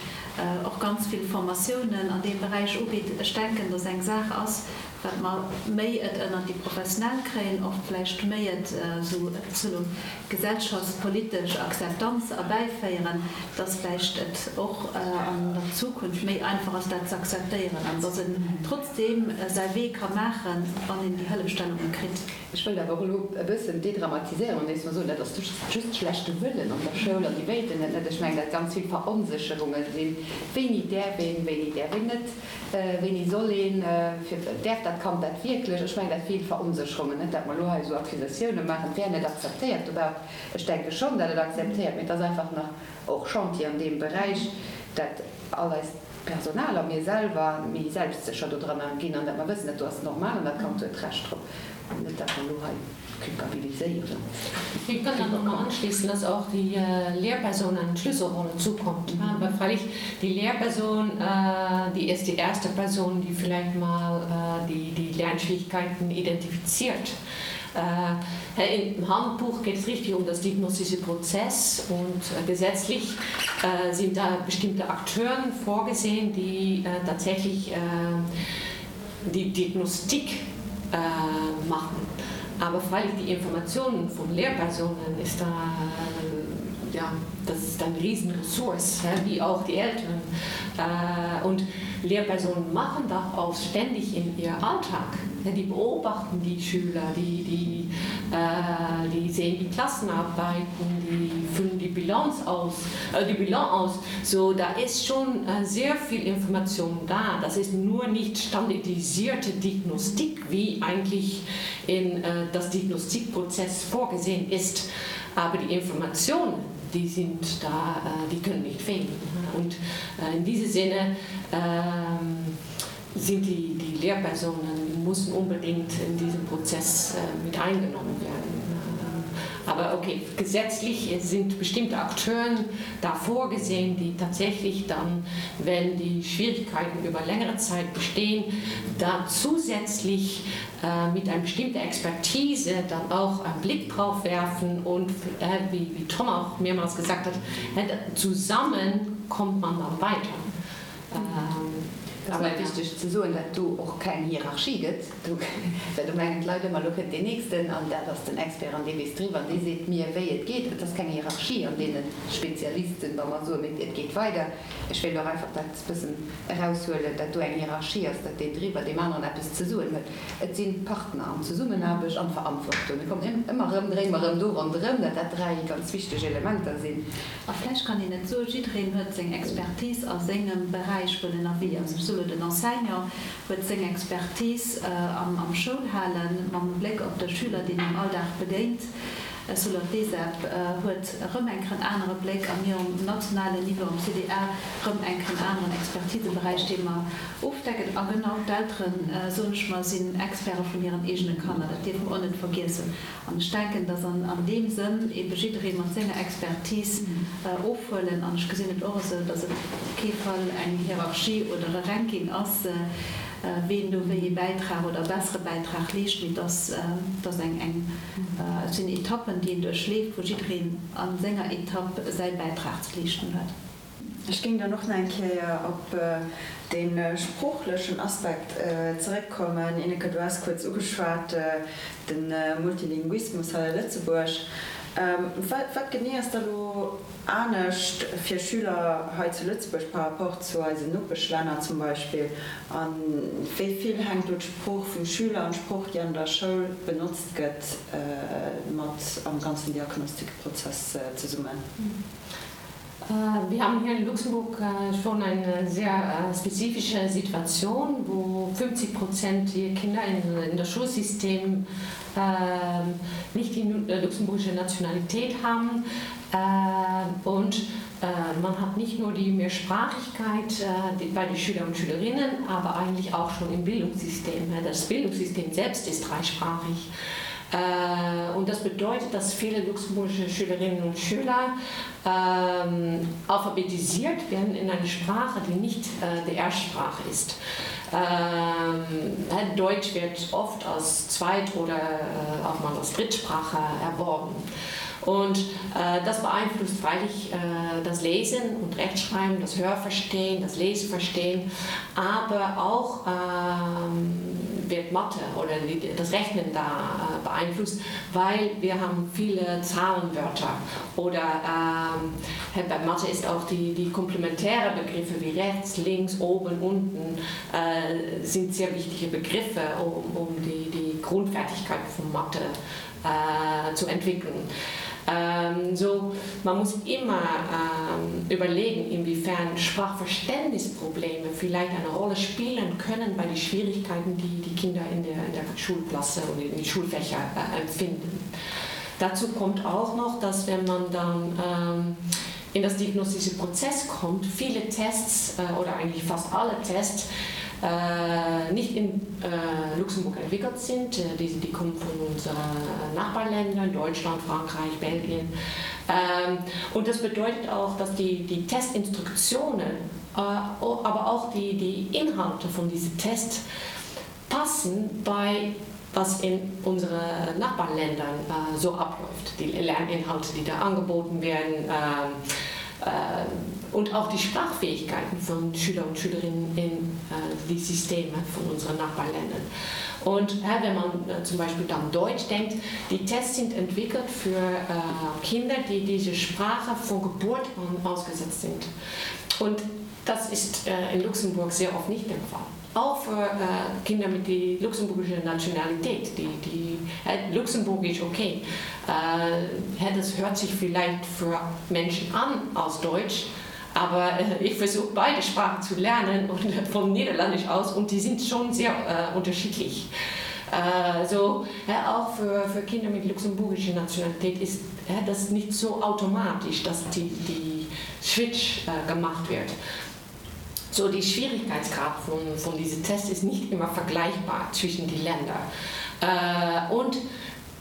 och ganz vill Formatiounen an deem Beräich ubitt, ech denken, dass eng Saach ass, wat mer méi et ënnert déi Professionell kréien, och vläicht méi et esou soe gesellschaftspolitesch Akzeptanz erbäiféieren, dass vläicht et och an der Zukunft méi einfach ass, dat ze akzeptéieren an dass en trotzdeem säi Wee ka maachen, wann een déi Hëllefstellunge kritt. Ech wëllt awer och elo e bëssen dédramatiséieren an éischt mol soen, dat ass just schlechte Wëllen an der Schoul an déi wéilten et net. Ech mengen, dat ganz vill Veronsécherunge sinn, wéini däerf een, wéini däerf een net. Wéini soll een, fir, däerf dat Kand dat wierklech? Ech mengen, dat vill Veronsécherungen, net dat mer elo hei esou Accusatioune maachen, et wär net akzeptéiert dobaussen. Ech denke schonn, dat et akzeptéiert, mee et ass einfach nach och Chantier an deem Beräich, dat all eist Personal a mir selwer méi selbstsécher dodranner ginn an dat mer wëssen, dat do ass normal an dat Kand huet Recht drop. Net dat mer elo hei culpabiliséieren. Ich kann da nochmal anschließen, dass auch die äh, Lehrperson eine Schlüsselrolle zukommt. Mhm. Aber freilich die Lehrperson, äh, die ist die erste Person, die vielleicht mal äh, die, die Lernschwierigkeiten identifiziert. Äh, Im Handbuch geht es richtig um das diagnostische Prozess und äh, gesetzlich äh, sind da bestimmte Akteuren vorgesehen, die äh, tatsächlich äh, die Diagnostik äh, machen. Aber freilich die Informationen von Lehrpersonen ist da äh, ja, das ist ein Riesenressource, wie auch die Eltern. Äh, und Lehrpersonen machen das auch ständig in ihr Alltag. Die beobachten die Schüler, die, die, äh, die sehen die Klassenarbeiten, die füllen die Bilanz aus, äh, die Bilanz aus. So da ist schon äh, sehr viel Information da. Das ist nur nicht standardisierte Diagnostik, wie eigentlich in äh, das Diagnostikprozess vorgesehen ist. Aber die Informationen, die sind da, äh, die können nicht fehlen. Und äh, in diesem Sinne äh, sind die, die Lehrpersonen müssen unbedingt in diesem Prozess äh, mit eingenommen werden. Aber okay, gesetzlich sind bestimmte Akteure da vorgesehen, die tatsächlich dann, wenn die Schwierigkeiten über längere Zeit bestehen, da zusätzlich äh, mit einer bestimmten Expertise dann auch einen Blick drauf werfen und äh, wie, wie Tom auch mehrmals gesagt hat, äh, zusammen kommt man dann weiter. Ähm, Et ass nach wichteg ze soen, dat do och keng Hierarchie gëtt, do, well do mengen d'Leit ëmmer, elo kënnt deen Nächsten an dat ass den Expert an dee weess driwwer an dee seet mir, wéi et geet. Et ass keng Hierarchie an deene Spezialisten, wa mer soen, mee et geet weider. Ech wéilt och einfach dat bëssen eraushuelen, dat do eng Hierarchie ass, dat deen driwwer deem aneren eppes ze soen huet. Et si Partner an Zesummenaarbecht an Verantwortung. Mir kommen ëmmer erëm, dréine mer erëm do ronderëm, dat dat dräi ganz wichteg Elementer sinn. A vläicht kann een et soen, jiddereen huet seng Expertise a sengem Beräich, wou en ënnerwee ass. Ech soe lo, den Enseignant huet seng Expertise am Schoulhalen, mam Bléck op de Schüler, deen am Alldag begéint. Ech soe lo, d'ESEP huet erëm eng Kéier en anere Bléck a mir um nationalen Niveau, am CDA, erëm eng Kéier en aneren Expertiseberäich, dee mer ofdecken. A genau d'Elteren, soen ech mer, sinn Experte vun hiren eegene Kanner. Dat dierfe mer och net vergiessen. An ech denken, dass an deem Sënn ebe jidderee mat senger Expertise ofhuelen. An ech gesinn et och esou, dass et op kee Fall eng Hierarchie oder e Ranking ass, ween do wéi ee Bäitrag oder e bessere Bäitrag leescht, mee dass dass eng eng et sinn Etappen, déi een duerchleeft, wou jiddereen a senger Etapp säi Bäitrag ze leeschten huet. Ech géing dann och nach eng Kéier op dee sproochlechen Aspekt zeréckkommen. Ineke, du has kuerz ugeschwat, de Multilinguismus hei a Lëtzebuerg. Wat genee ass da lo anescht fir Schüler hei zu Lëtzebuerg par rapport zu eisen Nopeschlänner zum Beispill? A wéi vill hänkt do d'Sprooch vum Schüler an d'Sprooch, déi an der Schoul benotzt gëtt, mat am ganzen Diagnostikprozess zesummen? Äh, wir haben hier in Luxemburg äh, schon eine sehr äh, spezifische Situation, wo 50 Prozent der Kinder in, in das Schulsystem äh, nicht die luxemburgische Nationalität haben äh, und äh, man hat nicht nur die Mehrsprachigkeit äh, die, bei den Schüler und Schülerinnen, aber eigentlich auch schon im Bildungssystem. Das Bildungssystem selbst ist dreisprachig. Äh, und das bedeutet, dass viele luxemburgische Schülerinnen und Schüler ähm, alphabetisiert werden in eine Sprache, die nicht äh, die Erstsprache ist. Ähm, Deutsch wird oft als Zweit- oder äh, auch mal als Drittsprache erworben. Und äh, das beeinflusst freilich äh, das Lesen und Rechtschreiben, das Hörverstehen, das Leseverstehen, aber auch ähm, wird Mathe oder die, das Rechnen da äh, beeinflusst, weil wir haben viele Zahlenwörter oder ähm, bei Mathe ist auch die, die komplementäre Begriffe wie rechts, links, oben, unten äh, sind sehr wichtige Begriffe, um, um die, die Grundfertigkeit von Mathe äh, zu entwickeln. Ähm, so, man muss immer ähm, überlegen, inwiefern Sprachverständnisprobleme vielleicht eine Rolle spielen können bei den Schwierigkeiten, die die Kinder in der, in der Schulklasse und in den Schulfächer äh, empfinden. Dazu kommt auch noch, dass wenn man dann ähm, in das diagnostische Prozess kommt, viele Tests äh, oder eigentlich fast alle Tests äh, nicht in äh, Luxemburg entwickelt sind. Äh, die, die kommen von unseren Nachbarländern, Deutschland, Frankreich, Belgien. Ähm, und das bedeutet auch, dass die, die Testinstruktionen, äh, aber auch die, die Inhalte von diesen Tests passen bei was in unseren Nachbarländern äh, so abläuft. Die Lerninhalte, die da angeboten werden äh, äh, und auch die Sprachfähigkeiten von Schüler und Schülerinnen in äh, die Systeme von unseren Nachbarländern. Und äh, wenn man äh, zum Beispiel dann Deutsch denkt, die Tests sind entwickelt für äh, Kinder, die diese Sprache von Geburt an ausgesetzt sind. Und das ist äh, in Luxemburg sehr oft nicht der Fall auch für äh, Kinder mit die luxemburgische Nationalität, die, die äh, Luxemburgisch okay. Äh, das hört sich vielleicht für Menschen an aus Deutsch, aber äh, ich versuche beide Sprachen zu lernen und von Niederländisch aus und die sind schon sehr äh, unterschiedlich. Äh, so ja, auch für, für Kinder mit luxemburgischer Nationalität ist ja, das nicht so automatisch, dass die, die Switch äh, gemacht wird. So die Schwierigkeitsgrad von, von diesem Test ist nicht immer vergleichbar zwischen die Länder. Äh, und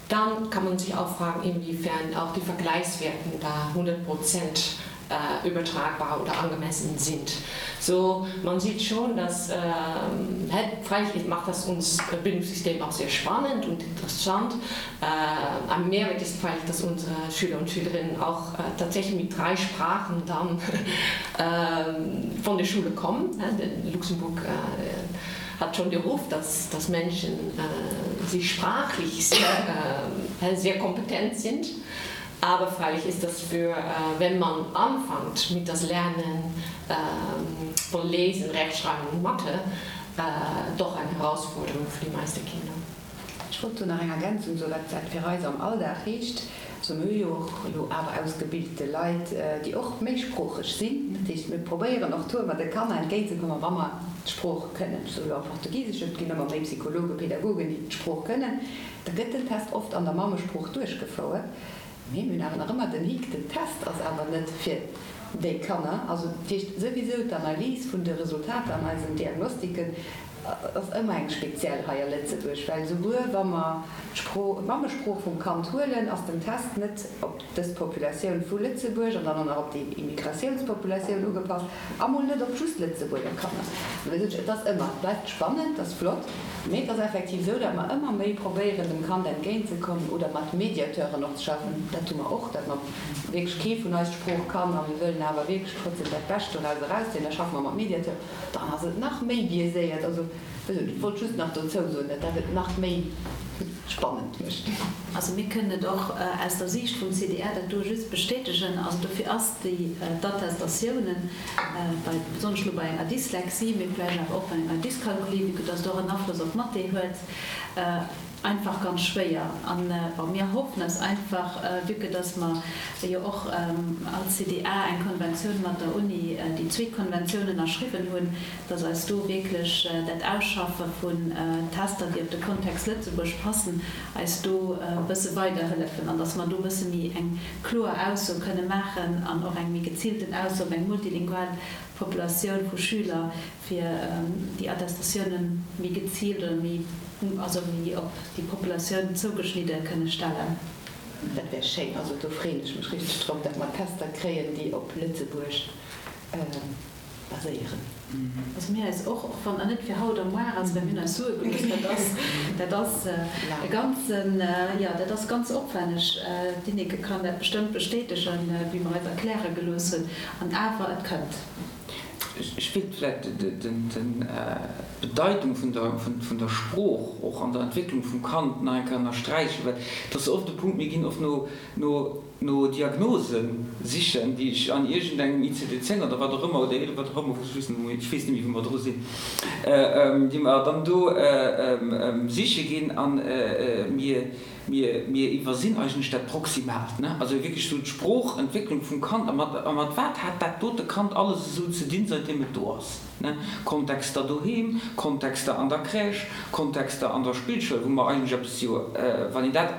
dann kann man sich auch fragen, inwiefern auch die Vergleichswerten da 100 Prozent äh, übertragbar oder angemessen sind. So man sieht schon, dass ähm, freilich macht das uns Bildungssystem auch sehr spannend und interessant. Äh, ein Mehrwert ist freilich, dass unsere Schüler und Schülerinnen auch äh, tatsächlich mit drei Sprachen dann äh, von der Schule kommen. Luxemburg äh, hat schon den Ruf, dass, dass Menschen äh, sich sprachlich sehr, äh, sehr kompetent sind. Aber freilich ist das für, äh, wenn man anfängt mit das Lernen ähm, von Lesen, Rechtschreiben und Mathe, äh, doch eine Herausforderung für die meisten Kinder. Ech wollt do nach eng Ergänzung soen, wat dat fir eis am Alldag heescht. Also mir hu jo och elo awer ausgebilte Leit, déi och méisproocheg sinn. Dat heescht, mir probéieren och do ëmmer de Kanner entgéintzekommen, wa mer d'Sprooch kënnen. Ech soe lo am Portugiseschen, et ginn ëmmer méi Psychologen, Pädagogen, déi d'Sprooch kënnen. Da gëtt den Test oft an der Mammesprooch duerchgefouert. Mee mir hunn awer nach ëmmer den Hick, den Test ass awer net fir déi Kanner. Also dat heescht souwisou d'Analys vun de Resultater an eisen Diagnostiken ass ëmmer eng speziell hei a Lëtzebuerg, well souguer wa mer d'Sprooch, d'Mammesprooch vum Kand huelen, ass den Test net op dës Populatioun vu Lëtzebuerg an dann och nach op déi Immigratiounspopulatioun ugepasst a mol net op just Lëtzebuerger Kanner. Et ass ëmmer, et bleift spannend, et ass flott. Mee et ass effektiv esou, datt mer ëmmer méi probéieren, dem Kand entgéintzekommen oder mat Mediateuren och ze schaffen. Dat hu mer och, datt mer wierklech kee vun eis d'Sprooch kann a mir wëllen awer wierklech trotzdem dat Bescht doraus erauszéien. Da schaffe mer mat Mediateuren. Dann ass et nach méi biaiséiert. Also, ech wollt just nach dozou soen, datt dat et nach méi spannend mécht. Also mir kënnen et och aus der Siicht vum CDR dat do just bestätegen. Also dofir ass déi d'Attestatiounen bei, besonnesch elo bei enger Dyslexie, mee vläicht awer och bei enger Dyskalkulie, vue que dass et och en Afloss op d'Mathé huet, einfach ganz schwéier. An, bon, mir hoffen eis einfach, vue que dass mer jo och als CDA eng. Konventioun mat der Uni, déi zweet Konventioun ënnerschriwwen hunn, dass eis do wierklech dat Ausschaffe vun Tester, déi op de Kontext Lëtzebuerg passen, eis do e bësse weiderhëllefen an dass mer do e bësse méi eng kloer Ausso kënne maachen an och eng méi geziilten Ausso op eng multilingual Populatioun vu Schüler, fir déi Attestatiounen méi geziilt oder méi, also méi op déi Populatioun zougeschnidde kënne stellen. Dat wär schéin. Also do freeën ech mech richteg drop, datt mer Tester kréien, déi op Lëtzebuerg baséieren. Also mir eis och, och wann net fir haut a muar ass, well mir hunn eis Sue gelooss, dat ass, dat ass e ganzen, jo, dat ass ganz opwänneg. D'Ineke kann dat bestëmmt bestätegen, wéi mer eis erkläre gelooss hunn. An awer, et kënnt. Ech wéilt vläicht d'Bedeitung vun der Sprooch och an der Entwécklung vum Kand nach eng Kéier ënnersträichen, well et ass oft e Punkt, mir ginn oft no Diagnose sichen, déi ech an iergendengem ICD 10 oder wat och ëmmer oder 11, wat och ëmmer, ech weess net méi, wou mer dru sinn, déi mer dann do siche ginn a mir Mir, mir iwwersinn eigentlech dat Proximaalt, ne? Also wierklech esou d'Sproochentwécklung vum Kand a mat, a mat wat hat dat dote Kand alles esou ze dinn, säitdeem et do ass, ne? Kontexter doheem, Kontexter an der Crèche, Kontexter an der Spillschoul, wou mer eigentlech eppes jo, wann een dat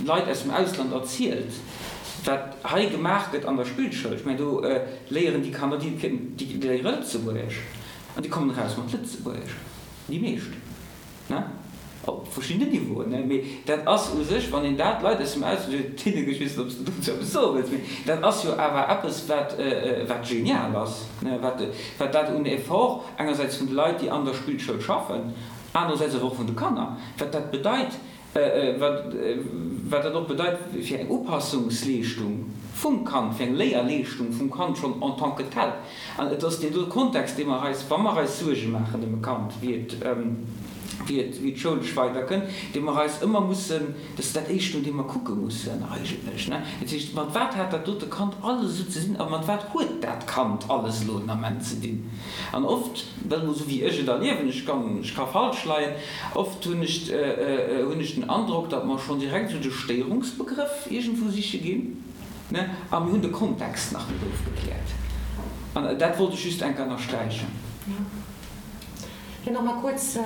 Leit aus dem Ausland erzielt, wat hei gemaach gëtt an der Spillschoul, ech mengen, do léieren déi Kanner, déi, déi léiere Lëtzebuergesch an déi kommen eraus mat Lëtzebuergesch, déi meescht. Ne? Op verschiddenen Niveauen, ne? Mee dat ass u sech, wann een dat Leit aus dem Ausland, Tineke, ech weess net, ob s de dozou eppes soe wëlls, mee dat ass jo awer eppes, wat, wat genial ass, ne? Wat, wat dat un Effort engersäits vun de Leit, déi an der Spillschoul schaffen, anerersäits awer och vun de Kanner, wat dat bedeit, Wat dat och bedeit fir eng Upassungsleeschtung vum Kand, fir eng Léierleeschtung vum Kand schonn en tant que tel. An et ass deen do Kontext, dee mer eis, wa mer eis Suerge maachen ëm e Kand, wéi et, wéi et, wéi et schoulesch weiderkënnt, dee mer eis ëmmer mussen, dat ass dat Éischt, no deem mer kucke mussen eigentlech, ne. Dat heescht, mat wat hat dat dote Kand alles esou ze dinn a mat wat huet dat Kand alles elo den Ament ze dinn? An oft, dat emol esou wéi ech et erliewen, ech kann, ech ka falsch leien, Oft hunn ech hunn ech den Androck, datt mer schonn direkt esou de Stéierungsbegrëff iergendwou siche ginn, ne, a mir hunn de Kontext nach net ofgekläert. An dat wollt ech just eng Kéier ënnersträichen. Fir nach mal kurz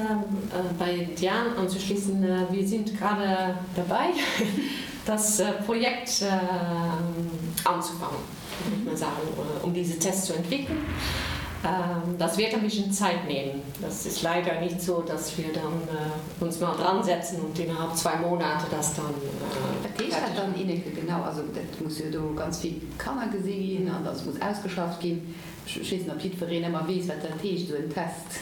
bei Diane anzuschließen, Wir sind gerade dabei, das Projekt anzufangen. würde ich mal sagen, um diese Tests zu entwickeln. Das wird ein bisschen Zeit nehmen. Das ist leider nicht so, dass wir dann uns mal dran setzen und innerhalb zwei Monate das dann. Wat heescht dat dann, Ineke, genau? Also dat muss jo do ganz vill Kanner gesi ginn an dat muss ausgeschafft ginn. Ech weess net, ob jiddwereen ëmmer weess, wat dat heescht, esou en Test.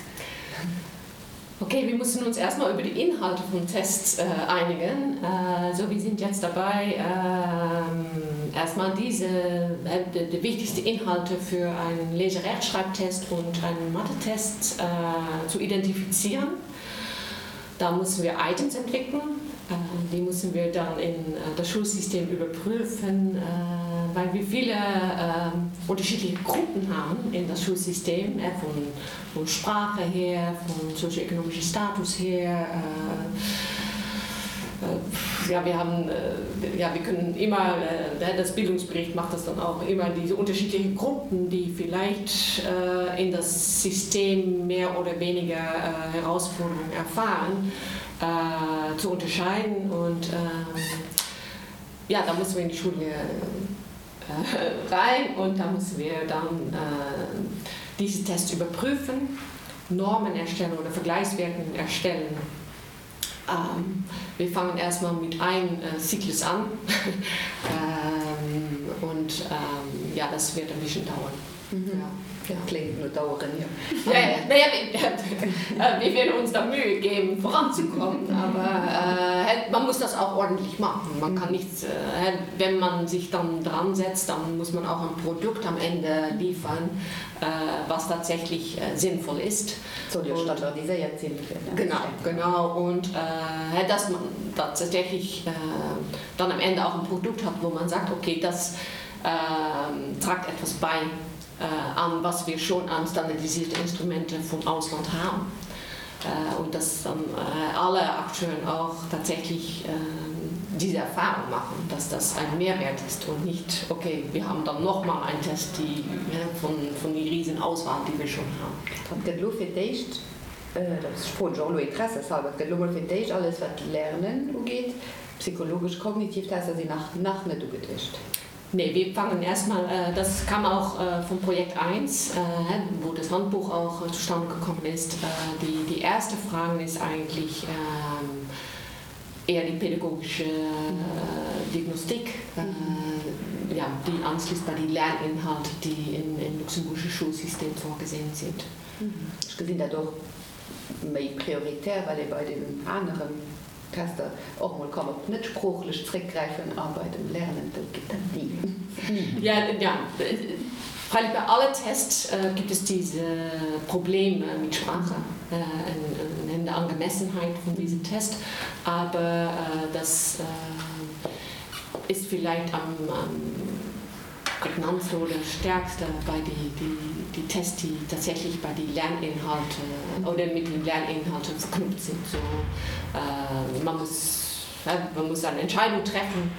Okay, wir müssen uns erstmal über die Inhalte vom Test äh, einigen. Äh, so wir sind jetzt dabei, äh, erstmal diese äh, die, die wichtigsten Inhalte für einen Leserechtschreibtest und einen Mathe-Test äh, zu identifizieren. Da müssen wir Items entwickeln. Äh, die müssen wir dann in äh, das Schulsystem überprüfen, äh, weil wir viele äh, unterschiedliche Gruppen haben in das Schulsystem äh, von von Sprache her, von sozioökonomischen Status her. Äh, äh, ja, wir haben, äh, ja, wir können immer, äh, das Bildungsbericht macht das dann auch immer, diese unterschiedlichen Gruppen, die vielleicht äh, in das System mehr oder weniger äh, Herausforderungen erfahren, äh, zu unterscheiden. Und äh, ja, da müssen wir in die Schule äh, rein und da müssen wir dann äh, diese Tests überprüfen, Normen erstellen oder Vergleichswerten erstellen. Ähm, wir fangen erstmal mit einem äh, Zyklus an ähm, und ähm, ja, das wird ein bisschen dauern. Mhm. Ja. Ja. Klingt no daueren, jo. Ja, ja. Naja, wir, äh, wir werden uns da Mühe geben, voranzukommen, aber äh, man muss das auch ordentlich machen. Man kann nichts, äh, wenn man sich dann dran setzt, dann muss man auch ein Produkt am Ende liefern, äh, was tatsächlich äh, sinnvoll ist. Soll jo standardiséiert sinn. Genau, genau. Und äh, dass man tatsächlich äh, dann am Ende auch ein Produkt hat, wo man sagt, okay, das äh, tragt etwas bei äh, an, was wir schon an standardisierte Instrumente vom Ausland haben. Und dass dann alle Akteure auch tatsächlich diese Erfahrung machen, dass das ein Mehrwert ist und nicht, okay, wir haben dann noch mal einen Test die, von, von die Riesenauswahl, die wir schon haben. Et gëtt elo fir d'éischt, dat froen ech och elo interesseshalber, et gëtt elo mol fir d'éischt alles wat d'Lernen ugeet, psychologesch, kognitiv Tester sinn nach nach net ugeduecht. Nee, wir fangen erstmal, das kam auch vom Projekt 1, wo das Handbuch auch zustande gekommen ist. Die, die erste Frage ist eigentlich eher die pädagogische Diagnostik, ja, die anschließt bei die Lerninhalte, die im, im luxemburgischen Schulsystem vorgesehen sind. Ech gesinn dat och méi prioritär, well ee bei deenen aneren Tester och mol kann op net-sproochlech zréckgräifen a bei dem Lernen, do geet dat ni. Ni. Ja, ja, freilich bei alle Tests gibt es diese Probleme mit Sprache in der Angemessenheit von diesem Test, aber das ist vielleicht am, am prägnantste oder stärkste bei die, die, die Tests, die tatsächlich bei die Lerninhalte oder mit den Lerninhalten verknüpft sind. So, äh, man muss man muss eine Entscheidung treffen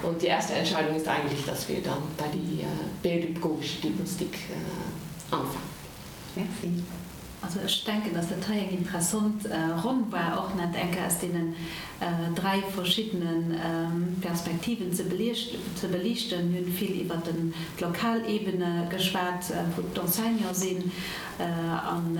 und die erste Entscheidung ist eigentlich, dass wir dann bei die äh, pädagogische Diagnostik äh, anfangen. Merci. Also ech denken, dass dat hei eng interessant Ronn war, och net eng Kéier aus deenen 3 verschiddene Perspektiven ze beliichten. Mir hunn vill iwwert d'lokal Ebene geschwat, wou d'Enseignante sinn, an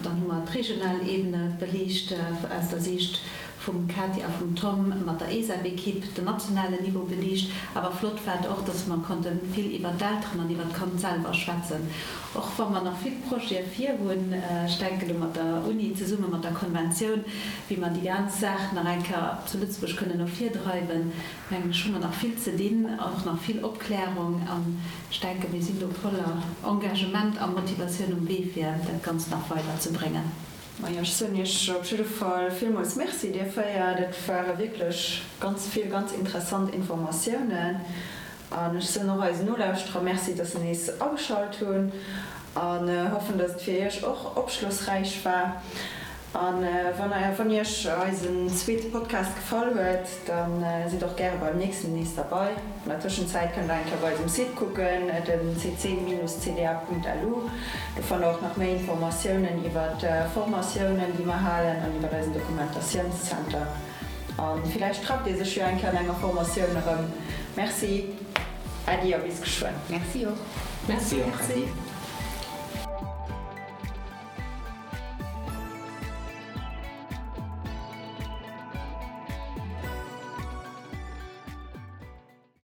dann hu mer d'regional Ebene beliicht aus der Siicht vum Katia a vum Tom mat der ESAB-Equipe, den nationalen Niveau beliicht. Awer flott war et och, dass mer konnte vill iwwert d'Elteren an iwwert d'Kand selwer schwätzen. Och wa mer nach vill Projete vir hunn, ech denken do mat der Uni zesumme mat der Konventioun, wéi mer déi ganz Saach nach eng Kéier zu Lëtzebuerg kënnen no vir dreiwen, mengen ech, hu mer nach vill ze dinn, och nach vill Opklärung. An ech denken, mir sinn do voller Engagement a Motivatioun um Wee, fir dat Ganzt nach weiderzebréngen. Majo, ech soen Iech op jidde Fall villmools Merci, dir 4. Dat ware wierklech ganz vill ganz interessant Informatiounen. An ech soen och eisen Nolauschterer Merci, dass se nees ageschalt hunn an hoffen, dass et fir Iech och opschlossräich war. A wann Iech eisen zweete Podcast gefall huet, da sidd och gäre beim nächsten nees derbei. An der Tëschenzäit kënnt der eng Kéier bei eisem Site kucken, den cc-cda.lu. Do fannt der och nach méi Informatiounen iwwer d'Formatiounen, déi mer halen an iwwer eisen Dokumentatiounszenter. A villäicht trefft ee sech jo eng Kéier an enger Formatioun erëm. Merci, Äddi a bis geschwënn. Merci och. Merci och, Äddi.